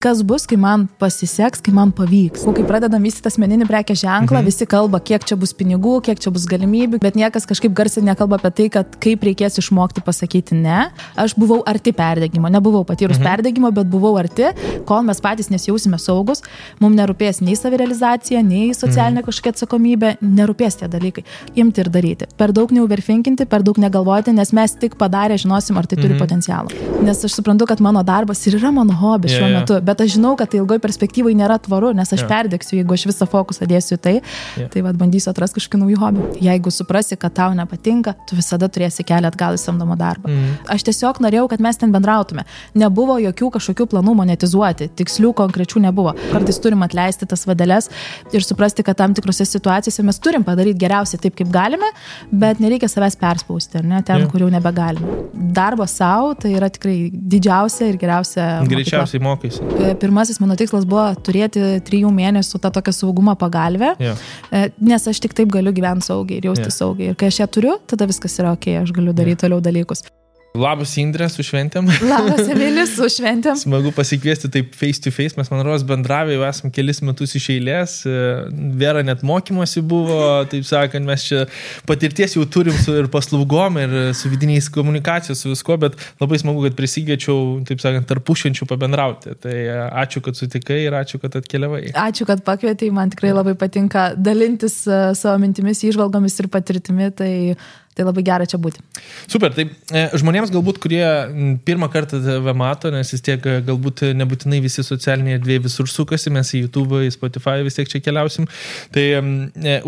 Kas bus, kai man pasiseks, kai man pavyks. Kai pradedam vystyti asmeninį prekės ženklą, visi kalba, kiek čia bus pinigų, kiek čia bus galimybių, bet niekas kažkaip garsiai nekalba apie tai, kad kaip reikės išmokti pasakyti ne. Aš buvau arti perdegimo, nebuvau patyrus perdegimo, bet buvau arti, kol mes patys nesijausime saugus, mums nerūpės nei savirealizacija, nei socialinė kažkokia atsakomybė, nerūpės tie dalykai. Imti ir daryti. Per daug neuverfinkinti, per daug negalvoti, nes mes tik padarę žinosim, ar tai turi potencialą. Nes aš suprantu, kad mano darbas ir yra mano hobis šiuo metu. Bet aš žinau, kad tai ilgoj perspektyvai nėra tvaru, nes aš perdegsiu, jeigu aš visą fokusą dėsiu į tai, tai bandysiu atrasti kažkokį naujų hobių. Jeigu suprasi, kad tau nepatinka, tu visada turėsi kelią atgal į samdomą darbą. Aš tiesiog norėjau, kad mes ten bendrautume. Nebuvo jokių kažkokių planų monetizuoti, tikslių, konkrečių nebuvo. Kartais turim atleisti tas vadeles ir suprasti, kad tam tikrose situacijose mes turim padaryti geriausiai taip, kaip galime, bet nereikia savęs perspausti, ar ne, ten, kur jau nebegalime. Darbas savo, tai yra tikrai didžiausia ir geriausia mokykla. Greičiausiai mokaisi. Pirmasis mano tikslas buvo turėti 3 mėnesių tą tokią saugumo pagalbę, nes aš tik taip galiu gyventi saugiai ir jausti saugiai. Ir kai aš ją turiu, tada viskas yra ok, aš galiu daryti toliau dalykus. Labas Indrė, su šventėm. Labas Emilis, su šventėm. Smagu pasikviesti taip face to face, mes man rodos bendravę jau esam kelis metus iš eilės, Vera net mokymosi buvo, taip sakant, mes čia patirties jau turim su ir paslaugom, ir su vidiniais komunikacijos, su visko, bet labai smagu, kad prisigėčiau, taip sakant, tarpušvenčių pabendrauti. Tai ačiū, kad sutikai ir ačiū, kad atkeliavai. Ačiū, kad pakvietei, man tikrai labai patinka dalintis savo mintimis, įžvalgomis ir patirtimi, tai labai gera čia būti. Super, tai žmonėms galbūt, kurie pirmą kartą tave mato, nes vis tiek galbūt nebūtinai visi socialiniai erdvėjai visur sukasi, mes į YouTube, į Spotify vis tiek čia keliausim. Tai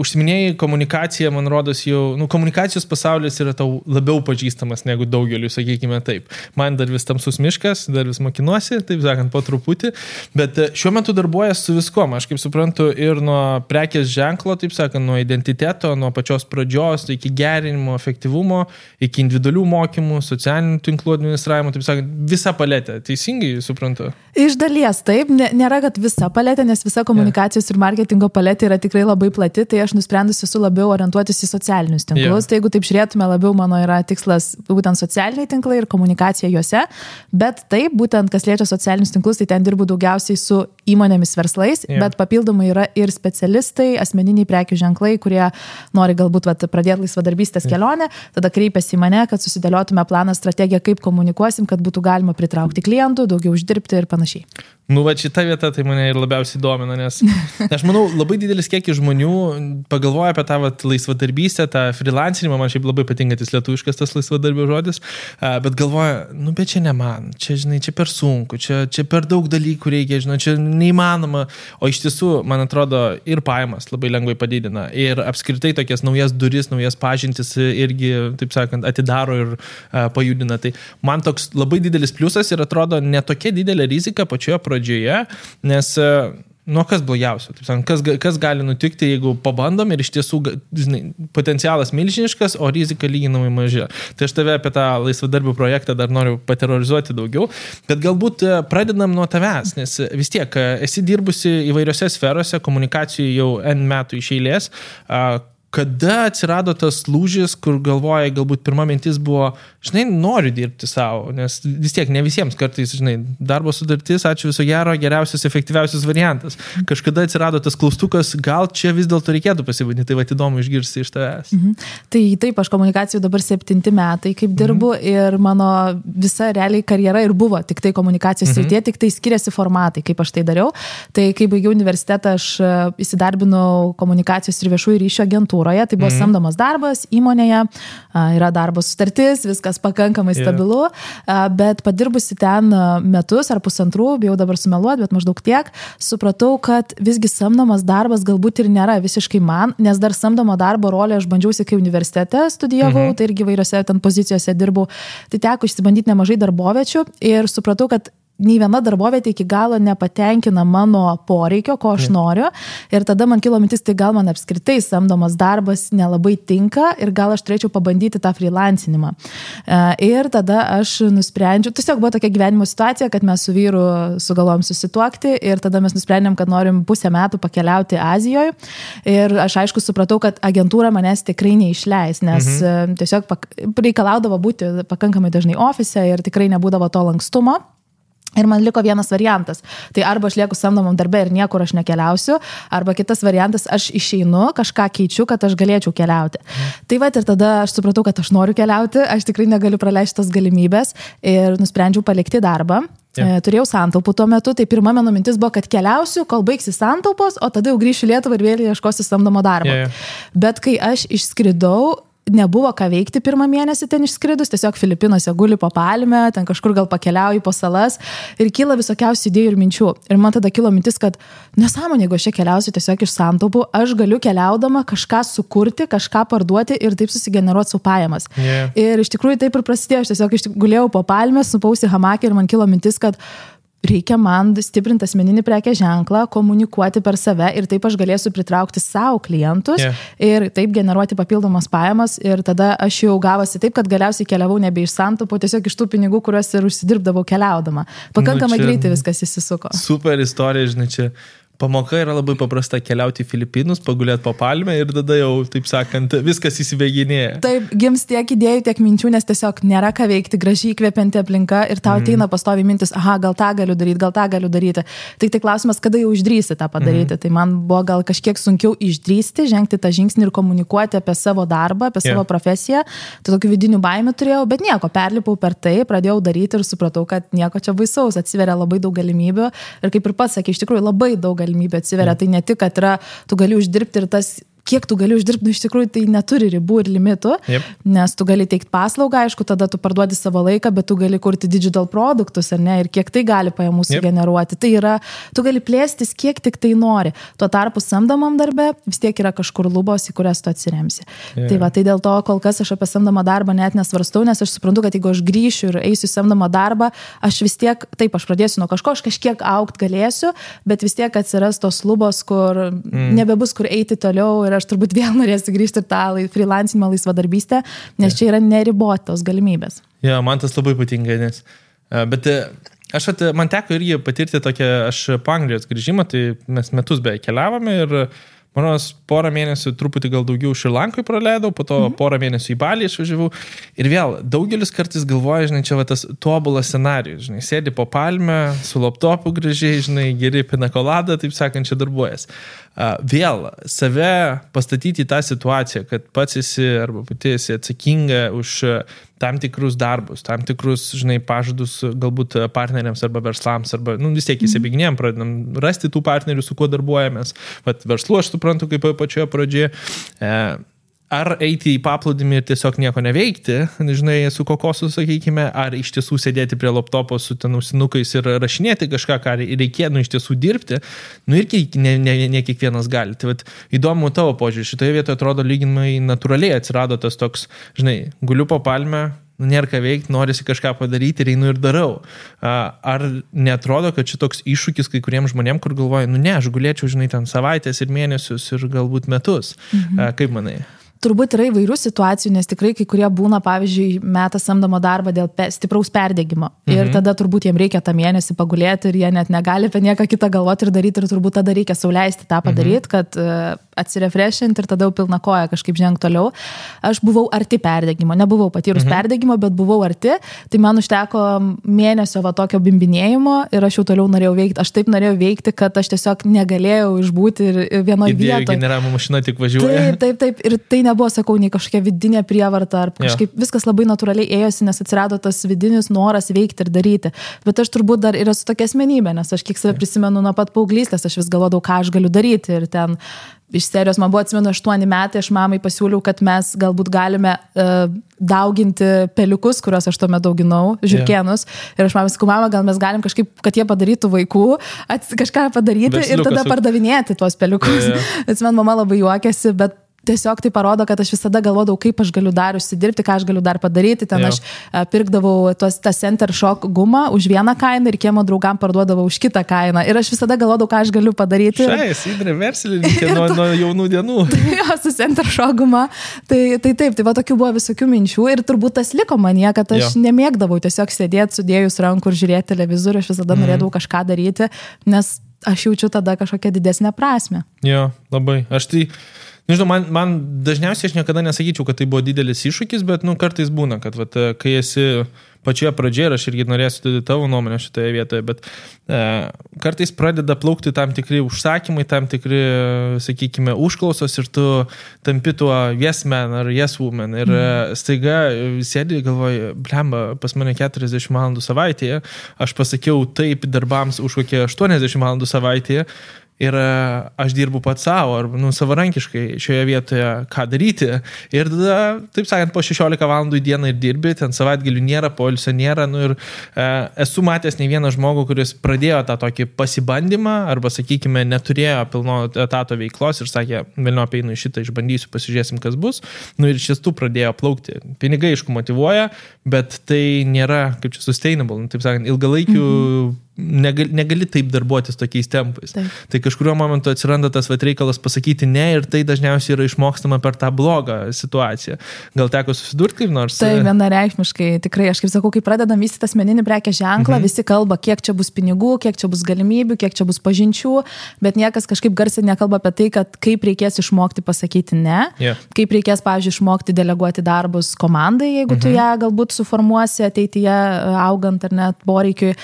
užsiminėjai komunikacija, man rodos jau, komunikacijos pasaulis yra tau labiau pažįstamas negu daugeliu, sakykime taip. Man dar vis tamsus miškas, dar vis mokinuosi, taip sakant, po truputį, bet šiuo metu darbuojas su viskom, aš kaip suprantu, ir nuo prekės ženklo, taip sakant, nuo identiteto, nuo pačios pradžios, iki gerinimo, efektyvumo, iki individualių mokymų, socialinių tinklų administravimo, taip sakant, visa paletė. Teisingai suprantu? Iš dalies taip, nėra, kad visa paletė, nes visa komunikacijos ir marketingo paletė yra tikrai labai plati, tai aš nusprendusi esu labiau orientuotis į socialinius tinklus. Tai jeigu taip žiūrėtume, labiau mano yra tikslas būtent socialiniai tinklai ir komunikacija juose, bet taip, būtent kas liečia socialinius tinklus, tai ten dirbu daugiausiai su įmonėmis verslais, bet papildomai yra ir specialistai, asmeniniai prekių ženklai, kurie nori galbūt pradėti laisvadarbystės kelionę, tada kreipiasi į mane, kad susidėliotume planą, strategiją, kaip komunikuosim, kad būtų galima pritraukti klientų, daugiau uždirbti ir panašiai. Šita vieta tai mane ir labiausiai domina, nes aš manau, labai didelis kiekis žmonių pagalvoja apie tą laisvadarbystę, tą freelancinimą, man šiaip labai patinka tas lietuviškas tas laisvadarbio žodis, bet galvoja, bet čia ne man, čia, žinai, čia per sunku, čia per daug dalykų reikia, žinai, čia neįmanoma, o iš tiesų, man atrodo, ir pajamas labai lengvai padidina, ir apskritai tokias naujas duris, naujas pažintis irgi, taip sakant, atidaro ir pajudina. Tai man toks labai didelis pliusas ir atrodo ne tokia didelė rizika pačioje pradžioje, nes kas blogiausio, taip sakant, kas gali nutikti, jeigu pabandom ir iš tiesų, žinai, potencialas milžiniškas, o rizika lyginamai maža. Tai aš tave apie tą laisvadarbių projektą dar noriu paterorizuoti daugiau, bet galbūt pradedam nuo tavęs, nes vis tiek esi dirbusi įvairiose sferose, komunikacijų jau N metų iš eilės. Kada atsirado tas lūžis, kur galvoja, galbūt pirma mintis buvo, žinai, noriu dirbti savo, nes vis tiek ne visiems kartais, žinai, darbo sutartis, ačiū viso gero, geriausias, efektyviausias variantas. Kažkada atsirado tas klaustukas, gal čia vis dėlto reikėtų pasibandyti, tai įdomu išgirsti iš tavęs. Tai taip, aš komunikacijų dabar 7 metai kaip dirbu ir mano visa realiai karjera ir buvo tik tai komunikacijos srityje, tik tai skiriasi formatai, kaip aš tai dariau. Tai kai baigiau universitetą, aš įsidarbinau komunikacijos ir viešųjų ryšių agentūroje. Tai buvo samdomas darbas įmonėje, yra darbo sutartis, viskas pakankamai stabilu, bet padirbusi ten metus ar pusantrų, bijau dabar sumeluoti, bet maždaug tiek, supratau, kad visgi samdomas darbas galbūt ir nėra visiškai man, nes dar samdomo darbo rolę aš bandžiausi, kai universitete studijavau, tai irgi vairiose ten pozicijose dirbau, tai teko išsibandyti nemažai darboviečių ir supratau, kad nei viena darbovietė iki galo nepatenkina mano poreikio, ko aš noriu. Ir tada man kilo mintis, tai gal man apskritai samdomas darbas nelabai tinka ir gal aš turėčiau pabandyti tą freelancinimą. Ir tada aš nusprendžiau, tiesiog buvo tokia gyvenimo situacija, kad mes su vyru sugalvojom susituokti ir tada mes nusprendėm, kad norim pusę metų pakeliauti Azijoje. Ir aš aišku supratau, kad agentūra manęs tikrai neišleis, nes tiesiog reikalaudavo būti pakankamai dažnai ofise ir tikrai nebūdavo to lankstumo. Ir man liko vienas variantas. Tai arba aš lieku samdomam darbe ir niekur aš nekeliausiu, arba kitas variantas, aš išeinu, kažką keičiu, kad aš galėčiau keliauti. Tai va ir tada aš supratau, kad aš noriu keliauti, aš tikrai negaliu praleisti tos galimybės ir nusprendžiau palikti darbą. Turėjau santaupų tuo metu, tai pirma mano mintis buvo, kad keliausiu, kol baigsi santaupos, o tada jau grįšiu Lietuvą ir vėl ieškosiu samdomo darbo. Bet kai aš išskridau, nebuvo ką veikti pirmą mėnesį ten išskridus, tiesiog Filipinuose guli po palmę, ten kažkur gal pakeliauju po salas ir kyla visokiausių idėjų ir minčių. Ir man tada kilo mintis, kad nesąmonė, jeigu aš čia keliausiu tiesiog iš santaupų, aš galiu keliaudama kažką sukurti, kažką parduoti ir taip susigeneruoti savo pajamas. Ir iš tikrųjų taip ir prasidėjo, aš tiesiog gulėjau po palmę, supausi hamakę ir man kilo mintis, kad reikia man stiprinti asmeninį prekės ženklą, komunikuoti per save ir taip aš galėsiu pritraukti savo klientus ir taip generuoti papildomas pajamas ir tada aš jau gavosi taip, kad galiausiai keliavau nebe iš santaupų, tiesiog iš tų pinigų, kuriuos ir užsidirbdavau keliaudama. Pakankamai greitai viskas įsisuko. Super istorija, žinai, čia pamoka yra labai paprasta keliauti į Filipinus, pagulėti po palmę ir tada jau, taip sakant, viskas įsibėginėja. Taip, gims tiek idėjų, tiek minčių, nes tiesiog nėra ką veikti, gražiai įkvepianti aplinka ir tau ateina pastoviai mintis, aha, gal tą galiu daryti. Tai klausimas, kada jau išdrįsi tą padaryti. Tai man buvo gal kažkiek sunkiau išdrįsti, žengti tą žingsnį ir komunikuoti apie savo darbą, apie savo profesiją. Tai tokių vidinių baimių turėjau, bet nieko, perlipau per tai, pradėjau daryti ir supratau, kad nieko čia baisaus, atsiveria labai daug galimybių ir kaip ir pats sakė, iš tikrųjų labai daug galimybė atsiveria. Tai ne tik, kad yra, tu gali uždirbti ir tas, kiek tu gali uždirbti, iš tikrųjų tai neturi ribų ir limitų, nes tu gali teikti paslaugą, aišku, tada tu parduodi savo laiką, bet tu gali kurti digital produktus, ar ne, ir kiek tai gali pajamų sugeneruoti. Tai yra, tu gali plėstis, kiek tik tai nori. Tuo tarpu samdomam darbe vis tiek yra kažkur lubos, į kurias tu atsiremsi. Tai va, tai dėl to kol kas aš apie samdomą darbą net nesvarstau, nes aš suprantu, kad jeigu aš grįšiu ir eisiu į samdomą darbą, aš vis tiek, taip, aš pradėsiu nuo kažko, aš kažkiek augt galėsiu, bet vis tiek atsiras tos lubos, kur nebebus kur eiti toliau. Ir aš turbūt vėl norėsiu grįžti ir tą freelancinimą, laisvadarbystę, nes čia yra neribotos galimybės. Ja, man tas labai patinka, nes... Bet man teko irgi patirti tokią, aš po Anglijos grįžimą, tai mes metus beje keliavome ir mano porą mėnesių truputį gal daugiau Šri Lankoj praleidau, po to porą mėnesių į Balį išvažiavau. Ir vėl, daugelis kartais galvoja, žinai, čia va tas tobulas scenarijus, žinai, sėdi po palmę, su laptopu gražiai, žinai, geri pinakoladą, taip sakant, čia darbuojas. Vėl, save pastatyti į tą situaciją, kad pats esi arba pati esi atsakinga už tam tikrus darbus, tam tikrus, žinai, pažadus galbūt partneriams arba verslams, arba, vis tiek įsibėginėjom, pradedam rasti tų partnerių, su kuo darbuojamės. Vat verslu aš suprantu, kaip pačioje pradžioje. Ar eiti į paplūdimį ir tiesiog nieko neveikti, žinai, su kokosu, sakykime, ar iš tiesų sėdėti prie laptopo su ten ausinukais ir rašinėti kažką, ką reikėtų iš tiesų dirbti, irgi ne kiekvienas gali. Tai vat, įdomu tavo požiūrį, šitoje vietoje atrodo lyginamai natūraliai atsirado tas toks, žinai, guliu po palmę, nėra ką veikti, norisi kažką padaryti ir einu ir darau. Ar neatrodo, kad šitoks iššūkis kai kuriems žmonėms, kur galvoja, ne, aš gulėčiau, žinai, ten savaitės ir mėnesius ir galbūt metus. Kaip manai? Turbūt yra įvairių situacijų, nes tikrai kai kurie būna, pavyzdžiui, meta samdomo darbą dėl stipraus perdegimo. Ir tada turbūt jiems reikia tą mėnesį pagulėti ir jie net negali apie nieką kitą galvoti ir daryti ir turbūt tada reikia sauliaisti tą padaryti, kad atsirefreshinti ir tada jau pilna koja kažkaip žengti toliau. Aš buvau arti perdegimo, nebuvau patyrus perdegimo, bet buvau arti, tai man užteko mėnesio va tokio bimbinėjimo ir aš jau toliau norėjau veikti. Aš taip norėjau veikti, kad aš tiesiog negalėjau išbūti vienoje vietoje. Generavimo mašina tik važiuoja. Taip. Ir tai nebuvo, sakau, nei kažkokia vidinė prievarta, ar kažkaip viskas labai natūraliai ėjosi, nes atsirado tas vidinis noras veikti ir daryti. Bet aš turbūt dar ir esu tokia asmenybė, nes aš kiek save prisimenu nuo pat paauglystės, aš vis galvodavau, ką aš galiu daryti. Ir ten iš serijos man buvo, atsimenu, 8 metai, aš mamai pasiūliau, kad mes galbūt galime dauginti peliukus, kuriuos aš tuo metu auginau, žiurkėnus. Ir aš mamai sakau, mama, gal mes galim kažkaip, kad jie padarytų vaikų, kažką padaryti ir tada pardavinėti tuos peliukus. Atsimenu, mama labai juokėsi, bet tiesiog tai parodo, kad aš visada galvodavau, kaip aš galiu dar užsidirbti, ką aš galiu dar padaryti. Ten aš pirkdavau tą Center Shock gumą už vieną kainą ir kiemo draugam parduodavau už kitą kainą. Ir aš visada galvodavau, ką aš galiu padaryti. Įdrė verslininkė nuo jaunų dienų. Jo, su Center Shock guma. Tai taip, tai va tokių buvo visokių minčių ir turbūt tas liko manyje, kad aš nemėgdavau tiesiog sėdėti sudėjus rankų ir žiūrėti televizorių, aš visada norėdavau kažką daryti, nes aš jaučiu tada kažkokią didesnę prasmę. Jo, labai. Aš tai Nežinau, man dažniausiai aš niekada nesakyčiau, kad tai buvo didelis iššūkis, bet, kartais būna, kad, kai esi pačioje pradžioje, ir aš irgi norėsiu tavo nuomonę šitoje vietoje, bet kartais pradeda plaukti tam tikri užsakymai, tam tikri, sakykime, užklausos ir tu tampi tuo yes man ar yes woman ir staiga sėdi ir galvoji, blemba, pas mane 40 valandų savaitėje, aš pasakiau taip darbams už kokie 80 valandų savaitėje, ir aš dirbu pats savo, ar savarankiškai šioje vietoje, ką daryti. Ir tada, taip sakant, po 16 valandų į dieną ir dirbi, ten savaitgalių nėra, poilsio nėra. Ir esu matęs ne vieną žmogų, kuris pradėjo tą tokį pasibandymą, arba, sakykime, neturėjo pilno etato veiklos ir sakė, vėliau apeinu šitą, išbandysiu, pasižiūrėsim, kas bus. Ir iš tiesų pradėjo plaukti. Pinigai, aišku, motyvuoja, bet tai nėra, kaip čia, sustainable, taip sakant, ilgalaikių negali taip darbuotis tokiais tempais. Taip. Tai kažkurio momentu atsiranda tas reikalas pasakyti ne ir tai dažniausiai yra išmokstama per tą blogą situaciją. Gal teko susidurti kaip nors? Tai vienareikšmiškai, tikrai, aš kaip sakau, kai pradedam vystyti asmeninį prekės ženklą, visi kalba, kiek čia bus pinigų, kiek čia bus galimybių, kiek čia bus pažinčių, bet niekas kažkaip garsiai nekalba apie tai, kad kaip reikės išmokti pasakyti ne, kaip reikės, pavyzdžiui, išmokti deleguoti darbus komandai, jeigu tu ją galbūt suformuosi ateityje augant ar net poreikiui.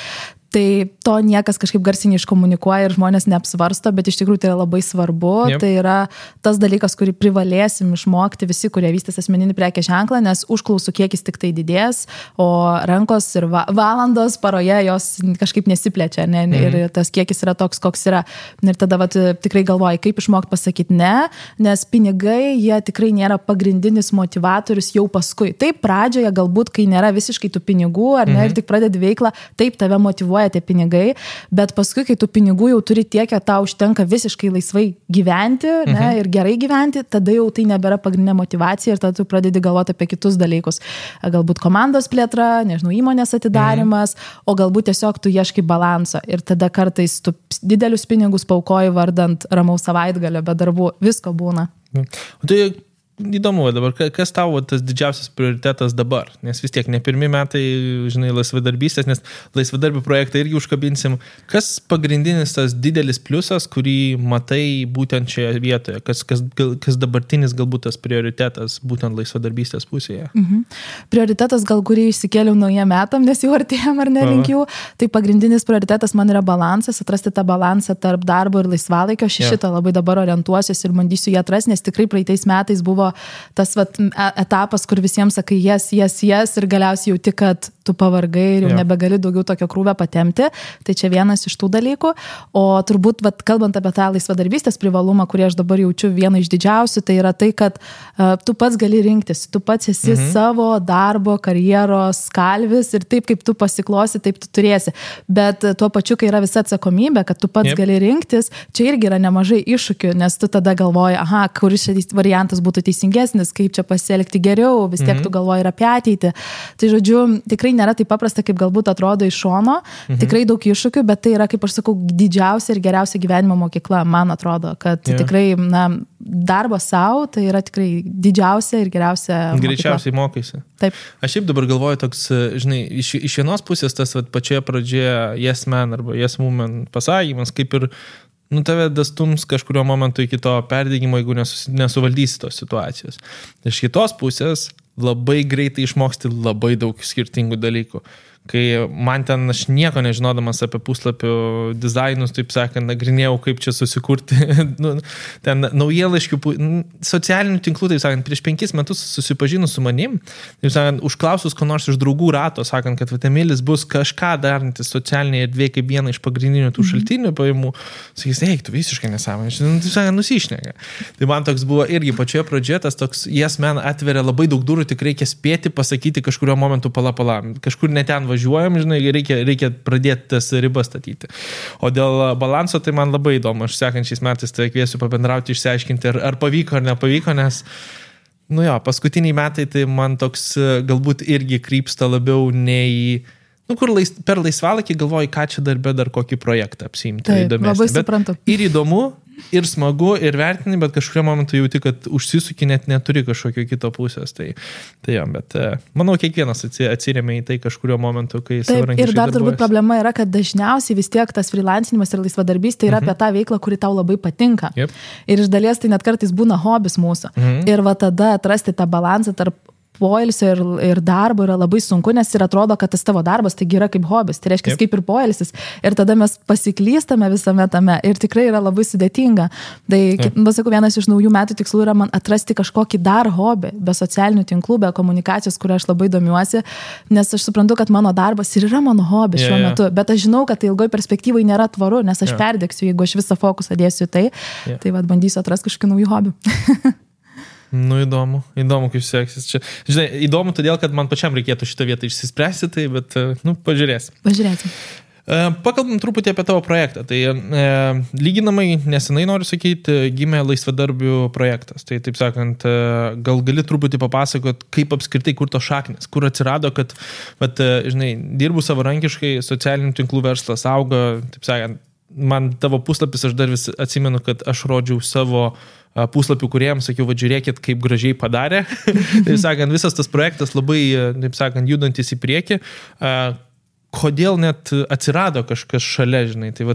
Tai to niekas kažkaip garsiai neiškomunikuoja ir žmonės neapsvarsto, bet iš tikrųjų tai yra labai svarbu. Tai yra tas dalykas, kurį privalėsim išmokti visi, kurie vystys asmeninį prekės ženklą, nes užklausų kiekis tik tai didės, o rankos ir valandos paroje jos kažkaip nesiplečia, ne? Ir tas kiekis yra toks, koks yra. Ir tada tikrai galvoji, kaip išmokti pasakyti ne, nes pinigai, jie tikrai nėra pagrindinis motivatorius jau paskui. Taip, pradžioje galbūt, kai nėra visiškai tų pinigų, ar ne, ir tik pradedi veiklą, taip tave motyvuoja tie pinigai, bet paskui, kai tų pinigų jau turi tiek, kad tau užtenka visiškai laisvai gyventi, ne, ir gerai gyventi, tada jau tai nebėra pagrindinė motivacija ir tada tu pradedi galvoti apie kitus dalykus. Galbūt komandos plėtra, nežinau, įmonės atidarimas, o galbūt tiesiog tu ieškai balanso ir tada kartais tu didelius pinigus paukoji vardant ramaus savaitgalio, be darbų, visko būna. O tai įdomu dabar, kas tavo tas didžiausias prioritetas dabar? Nes vis tiek ne pirmi metai, žinai, laisvadarbystės, nes laisvadarbių projektą irgi užkabinsim. Kas pagrindinis tas didelis pliusas, kurį matai būtent šioje vietoje? Kas dabartinis galbūt tas prioritetas būtent laisvadarbystės pusėje? Prioritetas gal, kurį išsikėliau naujiem metam, nes jau artėjom ar nelinkiu. Tai pagrindinis prioritetas man yra balansas, atrasti tą balansą tarp darbo ir laisvalaikio. Šitą labai dabar orientuosiuosi ir bandysiu jį atrasti, nes tikrai praeitais metais buvo tas etapas, kur visiems sakai yes ir galiausiai jauti, kad tu pavargai ir jau nebegali daugiau tokio krūvio patemti. Tai čia vienas iš tų dalykų. O turbūt, kalbant apie tą laisvadarbystės privalumą, kurį aš dabar jaučiu vieną iš didžiausių, tai yra tai, kad tu pats gali rinktis. Tu pats esi savo darbo, karjeros kalvis ir taip, kaip tu pasiklosi, taip tu turėsi. Bet tuo pačiu, kai yra visa atsakomybė, kad tu pats gali rinktis, čia irgi yra nemažai iššūkių, nes tu tada galvoji, kuris šis variantas būtų teisingesnis, kaip čia pasielgti geriau, vis tiek tu galvoji ir apie ateitį. Tai žodžiu, tikrai nėra taip paprasta, kaip galbūt atrodo iš šono, tikrai daug iššūkių, bet tai yra, kaip aš sakau, didžiausia ir geriausia gyvenimo mokykla, man atrodo, kad tikrai, darbas savo, tai yra tikrai didžiausia ir geriausia mokykla. Greičiausiai mokaisi. Taip. Aš šiaip dabar galvoju toks, žinai, iš vienos pusės tas pačioje pradžioje yes man arba yes woman pasakymas, kaip ir tave dastums kažkurio momentu iki to perdegimo, jeigu nesuvaldysi tos situacijos. Iš kitos pusės labai greitai išmoksti labai daug skirtingų dalykų. Kai man ten aš nieko nežinodamas apie puslapių dizainus, taip sakant, nagrinėjau, kaip čia susikurti ten naujienlaiškių, socialinių tinklų, taip sakant, prieš 5 metus susipažinus su manim, taip sakant, užklausus ko nors iš draugų rato, sakant, kad Emilis bus kažką darantis socialinėje erdvėje kaip vieną iš pagrindinių tų šaltinių pajamų, sakys, tu visiškai nesąmonė, taip sakant, nusišneka. Tai man toks buvo irgi pačioje pradžioje, tas toks yes man atveria labai daug durų, tik reikia spėti pasakyti kažkurio momentu pala, kažkur neten važiuojam, žinai, reikia pradėti tas ribas statyti. O dėl balanso, tai man labai įdomu. Aš sekančiais metais tai kviesiu pabendrauti, išsiaiškinti, ar pavyko ar nepavyko, nes, paskutiniai metai tai man toks galbūt irgi krypsta labiau nei kur per laisvalaikį galvoji, ką čia darbe dar kokį projektą apsiimti. Taip, labai suprantu. Ir įdomu, ir smagu, ir vertini, bet kažkurio momentu jauti, kad užsisuki, net neturi kažkokio kito pusės. Tai jo, bet manau, kiekvienas atsiremia į tai kažkurio momentu, kai savarankiškai ir dar turbūt problema yra, kad dažniausiai vis tiek tas freelancinimas ir laisvadarbystė yra apie tą veiklą, kuri tau labai patinka. Yep. Ir iš dalies tai net kartais būna hobis mūsų. Ir va tada atrasti tą balansą tarp poilsio ir darbo yra labai sunku, nes ir atrodo, kad tas tavo darbas taigi yra kaip hobis, tai reiškia kaip ir poilsis. Ir tada mes pasiklystame visame tame ir tikrai yra labai sudėtinga. Tai, pasakau, vienas iš naujų metų tikslų yra man atrasti kažkokį dar hobį, be socialinių tinklų, be komunikacijos, kurio aš labai domiuosi, nes aš suprantu, kad mano darbas ir yra mano hobis šiuo metu, bet aš žinau, kad tai ilgoj perspektyvai nėra tvaru, nes aš perdegsiu, jeigu aš visą fokusą dėsiu į tai, tai vad bandysiu atrasti kažkokį naujų hobių. Nu, įdomu, kaip seksis čia. Žinai, įdomu todėl, kad man pačiam reikėtų šitą vietą išsispręsti, tai, bet, pažiūrėsim. Pakalbam truputį apie tavo projektą. Tai lyginamai nesenai, noriu sakyti, gimė laisvadarbių projektas. Tai, taip sakant, gal gali truputį papasakot, kaip apskritai, kur to šaknis, kur atsirado, kad, žinai, dirbu savarankiškai, socialinių tinklų verslas auga, taip sakant, man tavo puslapis, aš dar vis atsimenu, kad aš rodžiau savo puslapių kuriems, sakiau, žiūrėkit, kaip gražiai padarė. Taip sakant, visas tas projektas labai, taip sakant, judantis į priekį. Kodėl net atsirado kažkas šalia, žinai, tai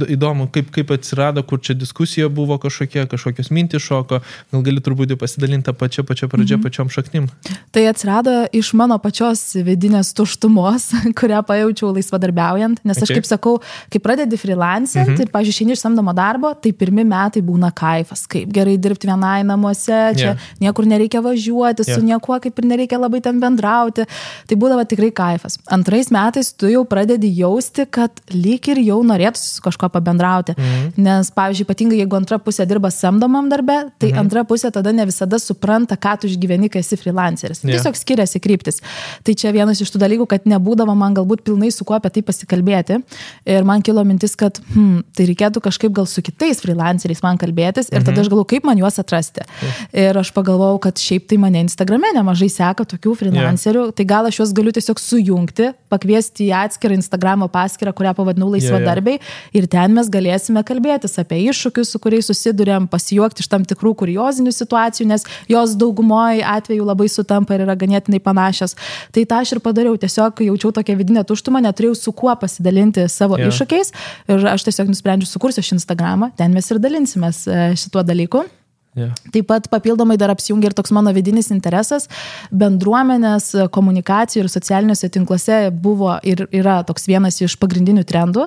įdomu, kaip atsirado, kur čia diskusija buvo kažkokios mintys šoko, gal gali truputį pasidalinti tą pačią pradžią, pačiom šaknim. Tai atsirado iš mano pačios vidinės tuštumos, kurią pajaučiau laisvadarbiaujant, nes aš kaip sakau, kai pradedi freelancint ir, pavyzdžiui, išeini iš samdomo darbo, tai pirmi metai būna kaifas, kaip gerai dirbti vienai namuose, čia niekur nereikia važiuoti, su niekuo kaip ir nereikia labai ten bendrauti, tai būdavo tikrai kaifas. Antrais metais tu jau pradedi jausti, kad lyg ir jau norėtųsi su kažko pabendrauti. Nes, pavyzdžiui, ypatingai jeigu antra pusė dirba samdomam darbe, tai antra pusė tada ne visada supranta, ką tu išgyveni, kai esi freelanceris. Tiesiog skiriasi kryptis. Tai čia vienas iš tų dalykų, kad nebūdavo man galbūt pilnai su kuo apie tai pasikalbėti. Ir man kilo mintis, kad tai reikėtų kažkaip gal su kitais freelanceriais man kalbėtis ir tada aš galvoju, kaip man juos atrasti. Ir aš pagalvojau, kad šiaip tai mane Instagrame nemažai seka tokių freelancerių, tai gal aš juos galiu tiesiog sujungti, pakviesti į atskirą Instagramo paskyrą, kurią pavadinau laisvadarbiai ir ten mes galėsime kalbėtis apie iššūkius, su kuriais susidurėm, pasijuokti iš tam tikrų kuriozinių situacijų, nes jos daugumoje atveju labai sutampa ir yra ganėtinai panašios. Tai tą aš ir padariau, tiesiog jaučiau tokią vidinę tuštumą, neturėjau su kuo pasidalinti savo iššūkiais ir aš tiesiog nusprendžiu sukursiu šį Instagramą, ten mes ir dalinsimės šituo dalyku. Taip pat papildomai dar apsijungia ir toks mano vidinis interesas. Bendruomenės komunikacijų ir socialiniuose tinkluose buvo ir yra toks vienas iš pagrindinių trendų.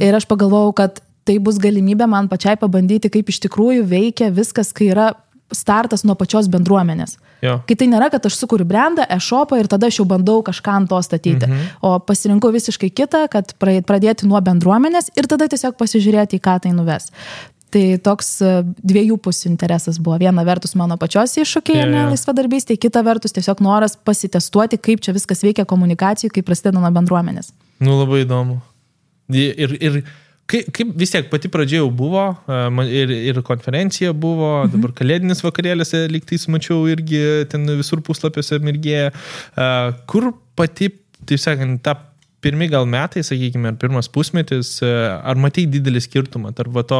Ir aš pagalvojau, kad tai bus galimybė man pačiai pabandyti, kaip iš tikrųjų veikia viskas, kai yra startas nuo pačios bendruomenės. Kai tai nėra, kad aš sukuriu brandą, e-shopą ir tada aš jau bandau kažką ant to statyti. O pasirinkau visiškai kitą, kad pradėti nuo bendruomenės ir tada tiesiog pasižiūrėti, į ką tai nuves. Tai toks dviejų pusių interesas buvo. Viena vertus mano pačios iššūkiai laisvadarbystė, kita vertus tiesiog noras pasitestuoti, kaip čia viskas veikia komunikacijai, kaip prasideda nuo bendruomenės. Nu, labai įdomu. Ir kaip vis tiek pati pradžia jau buvo, ir konferencija buvo, dabar kalėdinis vakarėlis, lygtais mačiau irgi ten visur puslapiuose mirgėja. Kur pati, taip sakant, ta pirmi gal metai, sakykime, ar pirmas pusmetis, ar matei didelį skirtumą tarp to,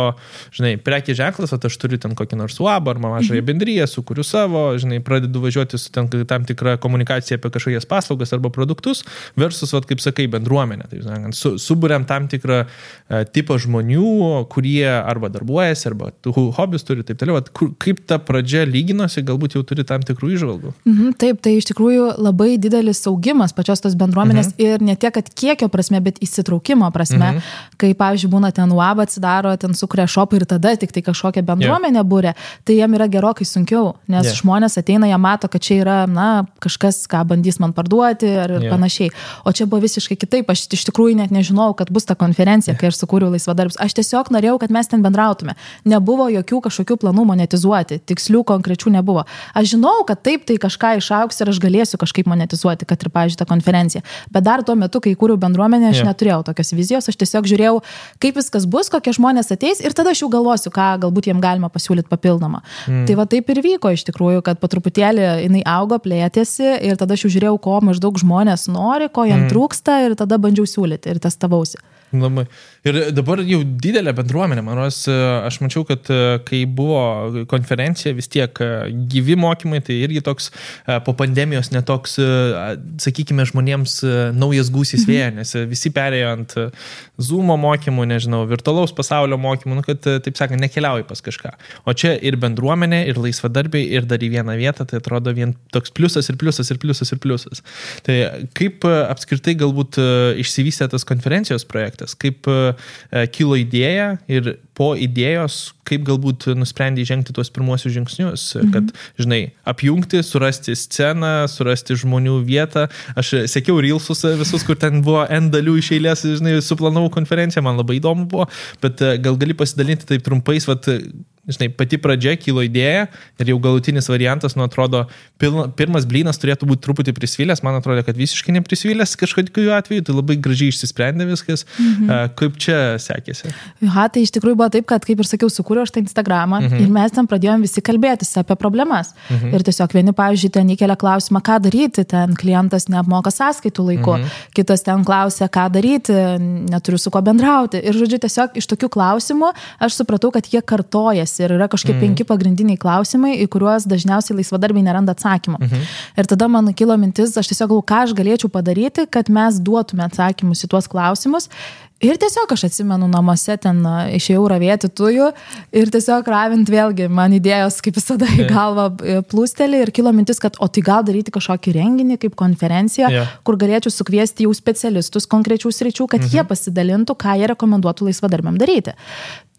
žinai, prekės ženklas, o aš turiu ten kokį nors UAB ar mažąją bendriją, sukuriu savo, žinai, pradedu važiuoti su tam tikra komunikacija apie kažkokias paslaugas arba produktus, versus, kaip sakai, bendruomenė. Tai, sakant, suburiam tam tikrą tipą žmonių, kurie arba darbuojasi, arba hobius turi, taip toliau. Kaip ta pradžia lyginosi, galbūt jau turi tam tikrų įžvalgų? Taip, tai iš tikrųjų labai didelis augimas pačios tos bendruomenės ir ne tiek, kad kiekio prasme, bet įsitraukimo prasme, kai, pavyzdžiui, būna ten UAB atsidaro, ten sukuria shopą ir tada tik tai kažkokią bendruomenę būrė, tai jam yra gerokai sunkiau, nes žmonės ateina, jie mato, kad čia yra, kažkas, ką bandys man parduoti ir panašiai. O čia buvo visiškai kitaip, aš iš tikrųjų net nežinojau, kad bus ta konferencija, kai aš sukūriau laisvadarbius. Aš tiesiog norėjau, kad mes ten bendrautume. Nebuvo jokių kažkokių planų monetizuoti, tikslių konkrečių nebuvo. Aš žinau, kad taip tai kažką išaugs ir aš galėsiu kažkaip monetizuoti, kad ir, pavyzdžiui, ta konferencija. Bet dar tuo metu, kai kūriau bendruomenę, aš neturėjau tokios vizijos, aš tiesiog žiūrėjau, kaip viskas bus, kokie žmonės ateis ir tada aš jau galvosiu, ką galbūt jiem galima pasiūlyti papildomą. Tai va taip ir vyko iš tikrųjų, kad po truputėlį jinai augo, plėtėsi ir tada aš jau žiūrėjau, ko maždaug žmonės nori, ko jiem trūksta ir tada bandžiau siūlyti ir testavausi. Labai. Ir dabar jau didelė bendruomenė, man rodos, aš mačiau, kad kai buvo konferencija, vis tiek gyvi mokymai, tai irgi toks po pandemijos netoks, sakykime, žmonėms naujas gūsis vėja, nes visi perėjo ant Zoomo mokymų, nežinau, virtualaus pasaulio mokymų, kad, taip sakant, nekeliauji pas kažką. O čia ir bendruomenė, ir laisvadarbiai, ir dar į vieną vietą, tai atrodo vien toks pliusas ir pliusas ir pliusas ir pliusas. Tai kaip apskritai galbūt išsivystė tas konferencijos projektas, kaip kilo idėja ir po idėjos, kaip galbūt nusprendė žengti tuos pirmuosius žingsnius, kad, žinai, apjungti, surasti sceną, surasti žmonių vietą. Aš sekiau reelsus visus, kur ten buvo N dalių iš eilės, žinai, suplanavau konferenciją, man labai įdomu buvo, bet gal gali pasidalinti taip trumpais, žinai, pati pradžia kilo idėja ir jau galutinis variantas, nu, atrodo, pirmas blynas turėtų būti truputį prisvilęs, man atrodo, kad visiškai neprisvilęs kažkokiu atveju, tai labai gražiai išsisprendė viskas. Kaip čia sekėsi? Tai iš tikrųjų buvo taip, kad, kaip ir sakiau, sukūriau aš tą Instagramą ir mes ten pradėjom visi kalbėtis apie problemas. Ir tiesiog vieni, pavyzdžiui, ten įkelia klausimą, ką daryti, ten klientas neapmoka sąskaitų laiku, kitas ten klausia, ką daryti, neturiu su kuo bendrauti. Ir, žodžiu, tiesiog iš tokių klausimų aš supratau, kad jie kartojasi. Ir yra kažkokie 5 pagrindiniai klausimai, į kuriuos dažniausiai laisvadarbiai neranda atsakymą. Ir tada man kilo mintis, aš tiesiog galvoju, ką aš galėčiau padaryti, kad mes duotume atsakymus į tuos klausimus. Ir tiesiog aš atsimenu namuose ten išėjau ravėti tujų ir tiesiog ravint vėlgi man idėjos kaip visada į galvą plūstelį ir kilo mintis, kad o tai gal daryti kažkokį renginį kaip konferenciją, kur galėčiau sukviesti jau specialistus konkrečių sričių, kad jie pasidalintų, ką jie rekomenduotų laisvadarbiam daryti.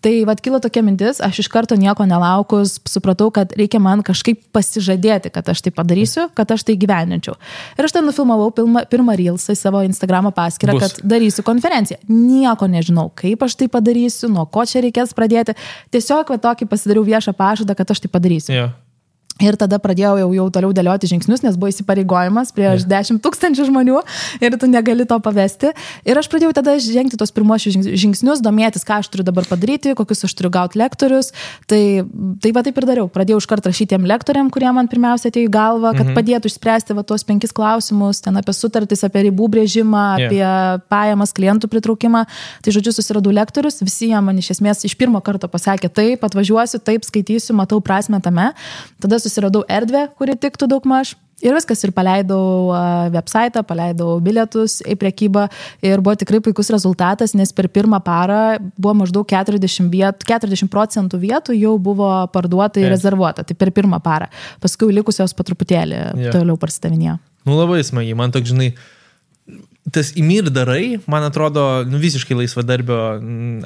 Tai vat kilo tokia mintis, aš iš karto nieko nelaukus supratau, kad reikia man kažkaip pasižadėti, kad aš tai padarysiu, kad aš tai gyveninčiau. Ir aš ten nufilmavau pirmą reelsą į savo Instagramo paskyrą, kad darysiu konferenciją. Nieko nežinau, kaip aš tai padarysiu, nuo ko čia reikės pradėti. Tiesiog tokį pasidariau viešą pažadą, kad aš tai padarysiu. Ir tada pradėjau jau toliau dėlioti žingsnius, nes buvo įsipareigojimas prieš 10 000 žmonių ir tu negali to pavesti. Ir aš pradėjau tada žengti tos pirmuosius žingsnius, domėtis, ką aš turiu dabar padaryti, kokius aš turiu gauti lektorius. Tai va taip ir dariau. Pradėjau iškart rašyti tiem lektoriam, kurie man pirmiausia atėjo į galvą, kad padėtų išspręsti tuos 5 klausimus, ten apie sutartis, apie ribų brėžimą, apie pajamas, klientų pritraukimą. Tai žodžiu, susiradau lektorius, visi jie man iš esmės iš pirmo karto pasakė, taip, atvažiuosiu, taip, skaitysiu, matau prasmę tame. Tada susiradau erdvę, kuri tiktų daugmaž. Ir viskas, ir paleidau website, paleidau bilietus į prekybą ir buvo tikrai puikus rezultatas, nes per pirmą parą buvo maždaug 40% vietų jau buvo parduota ir rezervuota. Tai per pirmą parą. Paskui likusios po truputėlį toliau parsidavinėjo. Nu labai smagiai, man toks, žinai, tas įmir darai, man atrodo, visiškai laisvadarbio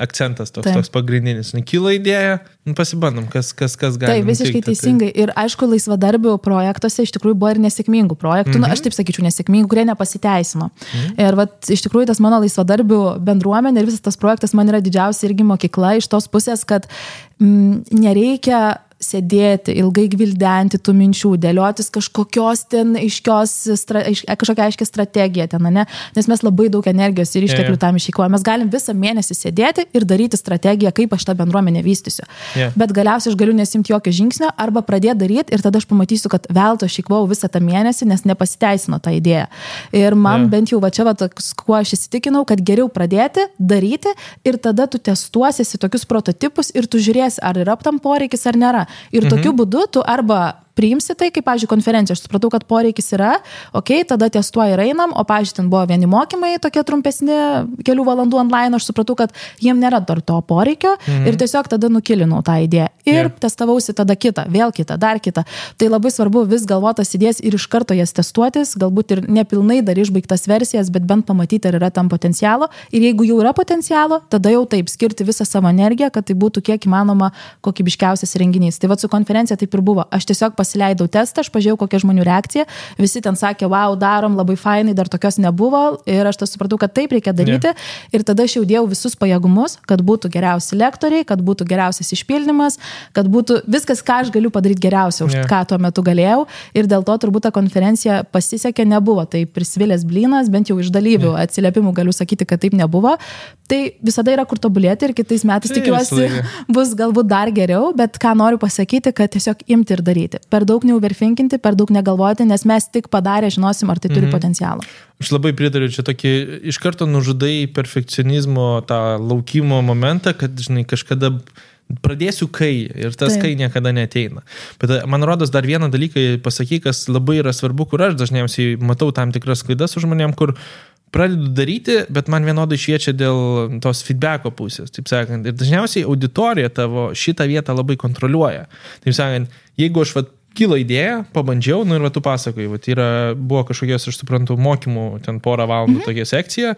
akcentas toks pagrindinis. Kilo idėja, pasibandom, kas gali. Taip, visiškai teisingai. Ir aišku, laisvadarbių projektuose iš tikrųjų buvo ir nesėkmingų projektų, aš taip sakyčiau, nesėkmingų, kurie nepasiteisino. Ir iš tikrųjų tas mano laisvadarbių bendruomenė ir visas tas projektas man yra didžiausia irgi mokykla iš tos pusės, kad nereikia sėdėti, ilgai gvildenti tų minčių, dėliotis kažkokios ten kažkokią aiškę strategiją ten, ne? Nes mes labai daug energijos ir išteklių tam išeikvojame. Mes galim visą mėnesį sėdėti ir daryti strategiją, kaip aš tą bendruomenę vystysiu. Bet galiausiai aš galiu nesimti jokio žingsnio arba pradėti daryti ir tada aš pamatysiu, kad veltui aš išeikvojau visą tą mėnesį, nes nepasiteisino tą idėją. Ir man bent jau čia, kuo aš įsitikinau, kad geriau pradėti, daryti ir tada tu testuosiesi tokius prototipus ir tu žiūrėsi, ar yra tam poreikis ar nėra. Ir tokiu būdu tu arba priimsi tai, kaip, pavyzdžiui, konferencija. Aš supratau, kad poreikis yra, tada testuoja ir einam, o, pavyzdžiui, ten buvo vieni mokymai, tokie trumpesni, kelių valandų online, aš supratau, kad jiem nėra dar to poreikio ir tiesiog tada nukilinau tą idėją. Ir testavausi tada kitą, vėl kitą, dar kitą. Tai labai svarbu vis galvotas idėjas ir iš karto jas testuotis, galbūt ir nepilnai dar išbaigtas versijas, bet bent pamatyti, ar yra tam potencialo. Ir jeigu jau yra potencialo, tada jau taip skirti visą savo energiją, kad tai būtų kiek įmanoma kokybiškiausias renginys. Tai su konferencija taip ir buvo. Aš tiesiog pasileidau testą, aš pažiūrėjau, kokia žmonių reakcija. Visi ten sakė, wow, darom, labai fainai, dar tokios nebuvo. Ir aš tas supratau, kad taip reikia daryti. Ir tada aš jau dėjau visus pajėgumus, kad būtų geriausi lektoriai, kad būtų geriausias išpildymas, kad būtų viskas, ką aš galiu padaryti geriausia, už ką tuo metu galėjau. Ir dėl to turbūt ta konferencija pasisekė, nebuvo. Tai prisvilęs blynas, bent jau iš dalyvių atsiliepimų galiu sakyti, kad taip nebuvo. Tai visada yra kur tobulėti ir kitais metais tikiuosi bus galbūt dar geriau, bet ką noriu pasakyti, kad tiesiog imti ir daryti. per daug neuverfinkinti, per daug negalvoti, nes mes tik padarę žinosim, ar tai turi potencialą. Aš labai pritariu, čia tokį iš karto nužudai perfekcionizmo tą laukimo momentą, kad, žinai, kažkada pradėsiu kai ir tas kai niekada neateina. Bet man rodos dar vieną dalyką pasakyk, kas labai yra svarbu, kur aš dažniausiai matau tam tikras klaidas su žmonėm, kur pradedu daryti, bet man vienodai šviečia dėl tos feedbacko pusės, taip sakant. Ir dažniausiai auditorija tavo šitą vietą labai kontroliuoja. Taip sakant, jeigu aš kilo idėja, pabandžiau, ir tu pasakoji, buvo kažkokios, aš suprantu, mokymų, ten porą valandų tokia sekcija,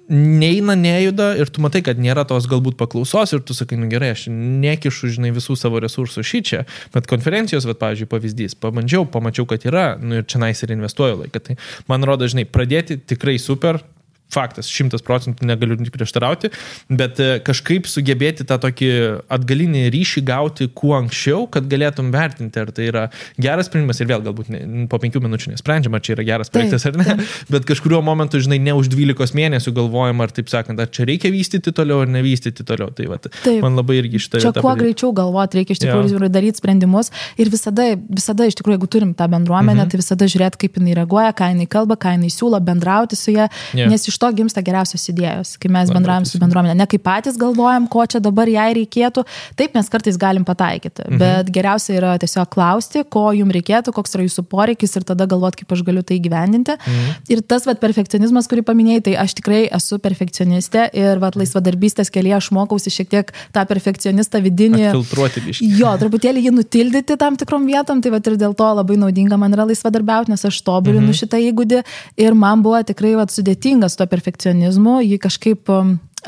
neina, nejuda ir tu matai, kad nėra tos galbūt paklausos ir tu sakai, gerai, aš nekišu, žinai, visų savo resursų šičia, bet konferencijos, pavyzdžiui, pavyzdys, pabandžiau, pamačiau, kad yra, ir čia nais ir investuoju laiką. Tai man rodo, žinai, pradėti tikrai super, faktas, 100% negaliu prieštarauti, bet kažkaip sugebėti tą tokį atgalinį ryšį gauti kuo anksčiau, kad galėtum vertinti, ar tai yra geras sprendimas ir vėl galbūt po 5 minučių nesprendžiama, ar čia yra geras projektas ar ne, bet kažkuriuo momentu, žinai, ne už 12 mėnesių galvojam, ar taip sakant, ar čia reikia vystyti toliau ar nevystyti toliau. Tai man labai irgi šitą vietą. Čia kuo greičiau galvoti, reikia iš tikrųjų daryti sprendimus ir visada iš tikrųjų, jeigu turim tą bendruomenę, tai visada žiūrėti, kaip jinai reaguoja, ką jinai kalba, ką jinai siūlo, bendrauti su ja, nes iš to gimsta geriausios idėjos, kai mes bendraujam su bendruomenė. Ne kaip patys galvojam, ko čia dabar jai reikėtų. Taip mes kartais galim pataikyti, bet geriausia yra tiesiog klausti, ko jums reikėtų, koks yra jūsų poreikis ir tada galvoti, kaip aš galiu tai įgyvendinti. Ir tas perfekcionizmas, kurį paminėjai, tai aš tikrai esu perfekcionistė ir laisvadarbystės kelyje aš mokausi šiek tiek tą perfekcionistą vidinį. Filtruoti biškį. Jo, truputėlį jį nutildyti tam tikrom vietom, tai ir dėl to labai naudinga man yra laisvadarbiauti, nes aš tobulinu šitą įgūdį ir man buvo tikrai sudėtingas to perfekcionizmu, jį kažkaip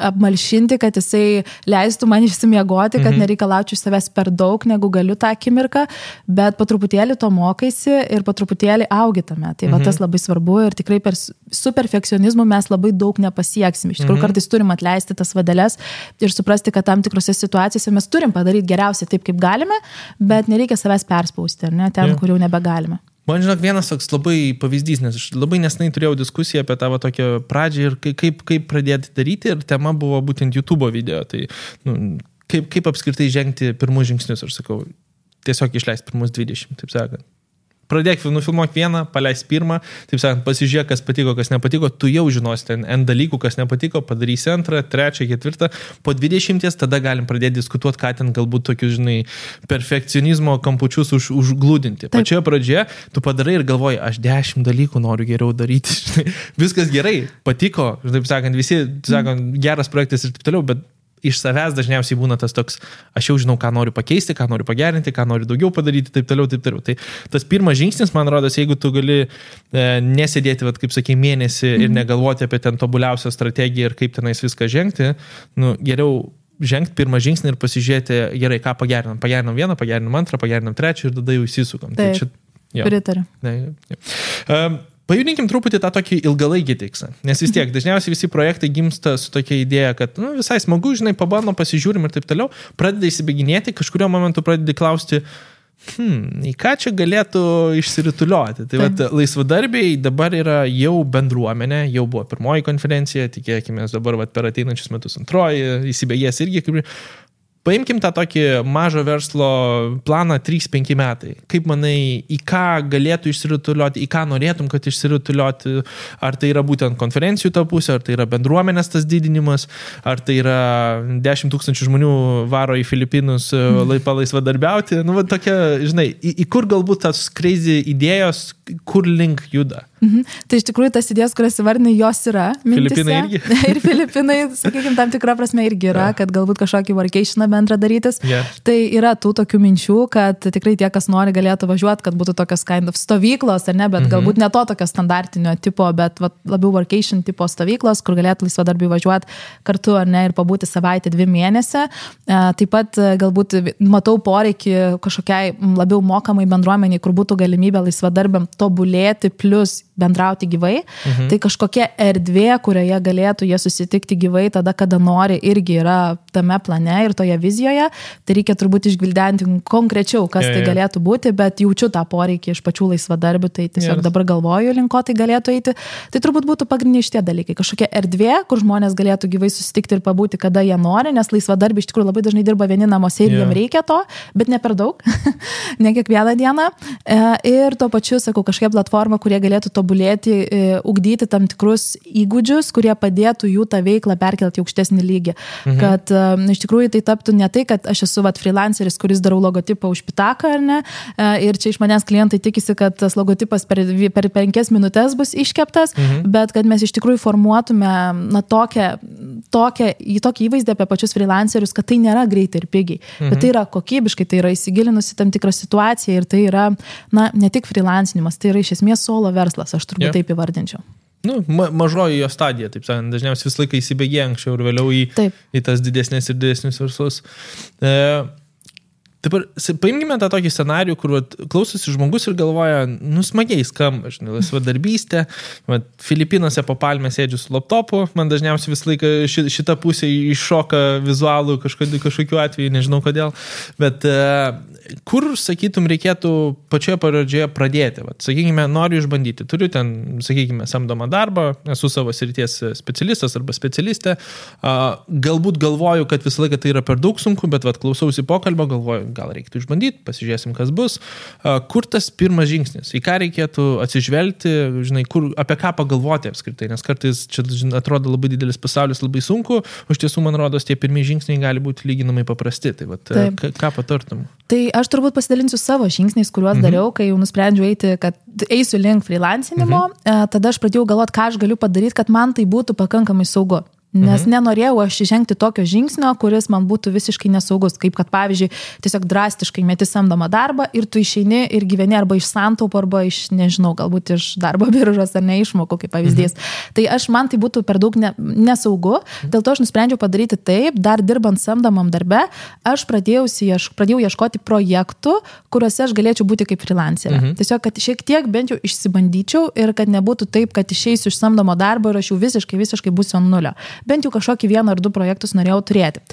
apmalšinti, kad jisai leistų man išsimiegoti, kad nereikalaučiau iš savęs per daug, negu galiu tą akimirką, bet po truputėlį to mokaisi ir po truputėlį augi tame. Tai tas labai svarbu ir tikrai su perfekcionizmu mes labai daug nepasieksim. Iš tikrųjų, kartais turim atleisti tas vadeles ir suprasti, kad tam tikrose situacijose mes turim padaryti geriausiai taip, kaip galime, bet nereikia savęs perspausti, ar ne, ten, kur jau nebegalime. Man žinok, vienas toks labai pavyzdys, nes aš labai nesnai turėjau diskusiją apie tavo tokią pradžią ir kaip pradėti daryti ir tema buvo būtent YouTube video. Tai kaip apskritai žengti pirmus žingsnius, aš sakau, tiesiog išleisti pirmus 20, taip sakant. Pradėk, nufilmuok vieną, paleis pirmą, taip sakant, pasižiūrėk, kas patiko, kas nepatiko, tu jau žinosi ten N dalykų, kas nepatiko, padarysi antrą, trečią, ketvirtą, po 20 tada galim pradėti diskutuoti, ką ten galbūt tokius, žinai, perfekcionizmo kampučius užglūdinti. Pačioje pradžioje tu padarai ir galvoji, aš 10 dalykų noriu geriau daryti, žinai, viskas gerai, patiko, taip sakant, visi, sakant, geras projektas ir taip toliau, bet iš savęs dažniausiai būna tas toks, aš jau žinau, ką noriu pakeisti, ką noriu pagerinti, ką noriu daugiau padaryti, taip toliau, taip toliau. Tai tas pirmas žingsnis, man rodos, jeigu tu gali nesėdėti, kaip sakei, mėnesį ir negalvoti apie ten tobuliausią strategiją ir kaip tenais viską žengti, geriau žengti pirmą žingsnį ir pasižiūrėti, gerai, ką pagerinam. Pagerinam vieną, pagerinam antrą, pagerinam trečią ir tada jau įsisukam. Taip, pritariu. Pajudinkim truputį tą tokį ilgalaikį tikslą, nes vis tiek dažniausiai visi projektai gimsta su tokia idėja, kad visai smagu, žinai, pabandom, pasižiūrim ir taip toliau, pradeda įsibėginėti, kažkurio momentu pradedi klausti, į ką čia galėtų išsirituliuoti. Tai laisvadarbiai dabar yra jau bendruomenė, jau buvo pirmoji konferencija, tikėkime dabar per ateinančius metus antroji, įsibėgės irgi kaip... Paimkim tą tokį mažo verslo planą 3-5 metai. Kaip manai, į ką galėtų išsirituliuoti, į ką norėtum, kad išsirituliuoti, ar tai yra būtent konferencijų ta pusė, ar tai yra bendruomenės tas didinimas, ar tai yra 10 000 žmonių varo į Filipinus laisvadarbiauti. Tokia, žinai, į kur galbūt tas crazy idėjos, kur link juda? Tai iš tikrųjų tas idėjas, kurias įvardinai, jos yra mintise. Filipinai irgi. Ir Filipinai, sakykime, tam tikrą prasme irgi yra, kad galbūt kažkokį vacationą bendrą darytis. Tai yra tų tokių minčių, kad tikrai tie, kas nori, galėtų važiuoti, kad būtų tokios kind of stovyklos, ar ne, bet galbūt ne to tokio standartinio tipo, bet labiau vacation tipo stovyklos, kur galėtų laisvadarbiai važiuoti kartu, ar ne, ir pabūti savaitę 2 mėnesį. Taip pat galbūt matau poreikį kažkokiai labiau mokamai bendruomeniai, kur būtų galimybė laisvadarbiam tobulėti, plus bendrauti gyvai, tai kažkokia erdvė, kurioje galėtų jie susitikti gyvai tada, kada nori, irgi yra tame plane ir toje vizijoje. Tai reikia turbūt išgvildenti konkrečiau, kas tai galėtų būti, bet jaučiu tą poreikį iš pačių laisvadarbių, tai tiesiog dabar galvoju, link ko tai galėtų eiti. Tai turbūt būtų pagrindiniai šitie dalykai. Kažkokia erdvė, kur žmonės galėtų gyvai susitikti ir pabūti, kada jie nori, nes laisvadarbiai iš tikrųjų labai dažnai dirba vieni namuose ir jiem reikia to, bet ne per daug, ne kiekvieną dieną. Ir tuo pačiu, sakau, kažkokia platforma, kurie galėtų tobulėti, ugdyti tam tikrus įgūdžius, kurie padėtų jų tą veiklą perkelti į aukštesnį lygį. Kad iš tikrųjų tai taptų ne tai, kad aš esu freelanceris, kuris darau logotipą už pitaką, ar ne, ir čia iš manęs klientai tikisi, kad tas logotipas per 5 minutės bus iškeptas, bet kad mes iš tikrųjų formuotume tokį įvaizdį apie pačius freelancerius, kad tai nėra greitai ir pigiai, bet tai yra kokybiškai, tai yra įsigilinusi tam tikrą situaciją ir tai yra, ne tik freelancinimas, tai yra iš esmės solo verslas, aš turbūt taip įvardinčiau. Mažoji jo stadija, taip sakant, dažniausiai visą laiką įsibėgė anksčiau ir vėliau į tas didesnės ir didesnius verslus. Dabar paimkime tą tokį scenarijų, kur klausosi žmogus ir galvoja, smagiai skamba, laisvadarbystė, Filipinuose po palmę sėdžiu su laptopu, man dažniausiai visą laiką šita pusė iššoka vizualų kažkokiu atveju, nežinau kodėl, bet kur, sakytum, reikėtų pačioje pradžioje pradėti? Sakykime, noriu išbandyti, turiu ten, sakykime, samdomą darbą, esu savo srities specialistas arba specialistė, galbūt galvoju, kad visą laiką tai yra per daug sunku, bet klausausi pokalbio, galvoju, gal reikėtų išbandyti, pasižiūrėsim, kas bus. Kur tas pirmas žingsnis? Į ką reikėtų atsižvelgti, apie ką pagalvoti apskritai, nes kartais čia atrodo labai didelis pasaulis, labai sunku, o iš tiesų, man rodos, tie pirmieji žingsniai gali būti lyginamai paprasti. Tai ką patartum? Tai aš turbūt pasidalinsiu savo žingsniais, kuriuos dariau, kai jau nusprendžiau eiti, kad eisiu link freelancinimo, tada aš pradėjau galvoti, ką aš galiu padaryti, kad man tai būtų pakankamai saugu. Nes nenorėjau aš žengti tokio žingsnio, kuris man būtų visiškai nesaugus, kaip kad, pavyzdžiui, tiesiog drastiškai meti samdomą darbą ir tu išeini ir gyveni arba iš santaupų, arba iš, nežinau, galbūt iš darbo biržos ar neišmokų, kaip pavyzdys. Tai man tai būtų per daug nesaugu, dėl to aš nusprendžiau padaryti taip, dar dirbant samdomam darbe, aš pradėjau ieškoti projektų, kuriuose aš galėčiau būti kaip freelancerė. Tiesiog, kad šiek tiek bent jau išsibandyčiau ir kad nebūtų taip, kad išeisiu iš samdomo darbo ir aš jau visiškai būsiu ant nulio. Bent jau kažkokį 1 ar 2 projektus norėjau turėti.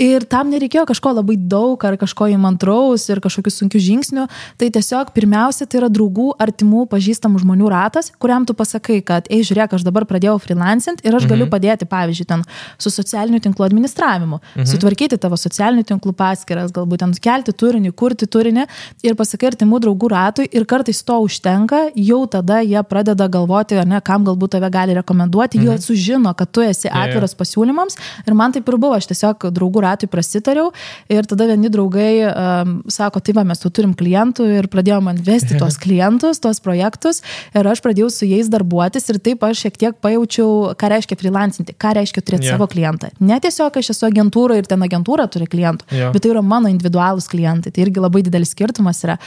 Ir tam nereikėjo kažko labai daug ar kažko įmantraus ir kažkokių sunkių žingsnių. Tai tiesiog pirmiausia, tai yra draugų, artimų, pažįstamų žmonių ratas, kuriam tu pasakai, kad, žiūrėk, aš dabar pradėjau freelancint ir aš galiu padėti, pavyzdžiui, ten su socialinių tinklų administravimu, sutvarkyti tavo socialinių tinklų paskyras, galbūt ten kelti turinį, kurti turinį ir pasakai artimų draugų ratui ir kartais to užtenka, jau tada jie pradeda galvoti, kam galbūt tave gali rekomenduoti, jie sužino, kad tu esi atviras pasiūlymams ir man taip ir buvo, aš tiesiog draugų ratui prasitariau ir tada vieni draugai sako, tai mes tu turim klientų ir pradėjo man vesti tuos klientus, tuos projektus ir aš pradėjau su jais darbuotis ir taip aš šiek tiek pajaučiau, ką reiškia freelancinti, ką reiškia turėti savo klientą. Ne tiesiog aš esu agentūra ir ten agentūra turi klientų, bet tai yra mano individualūs klientai, tai irgi labai didelis skirtumas yra.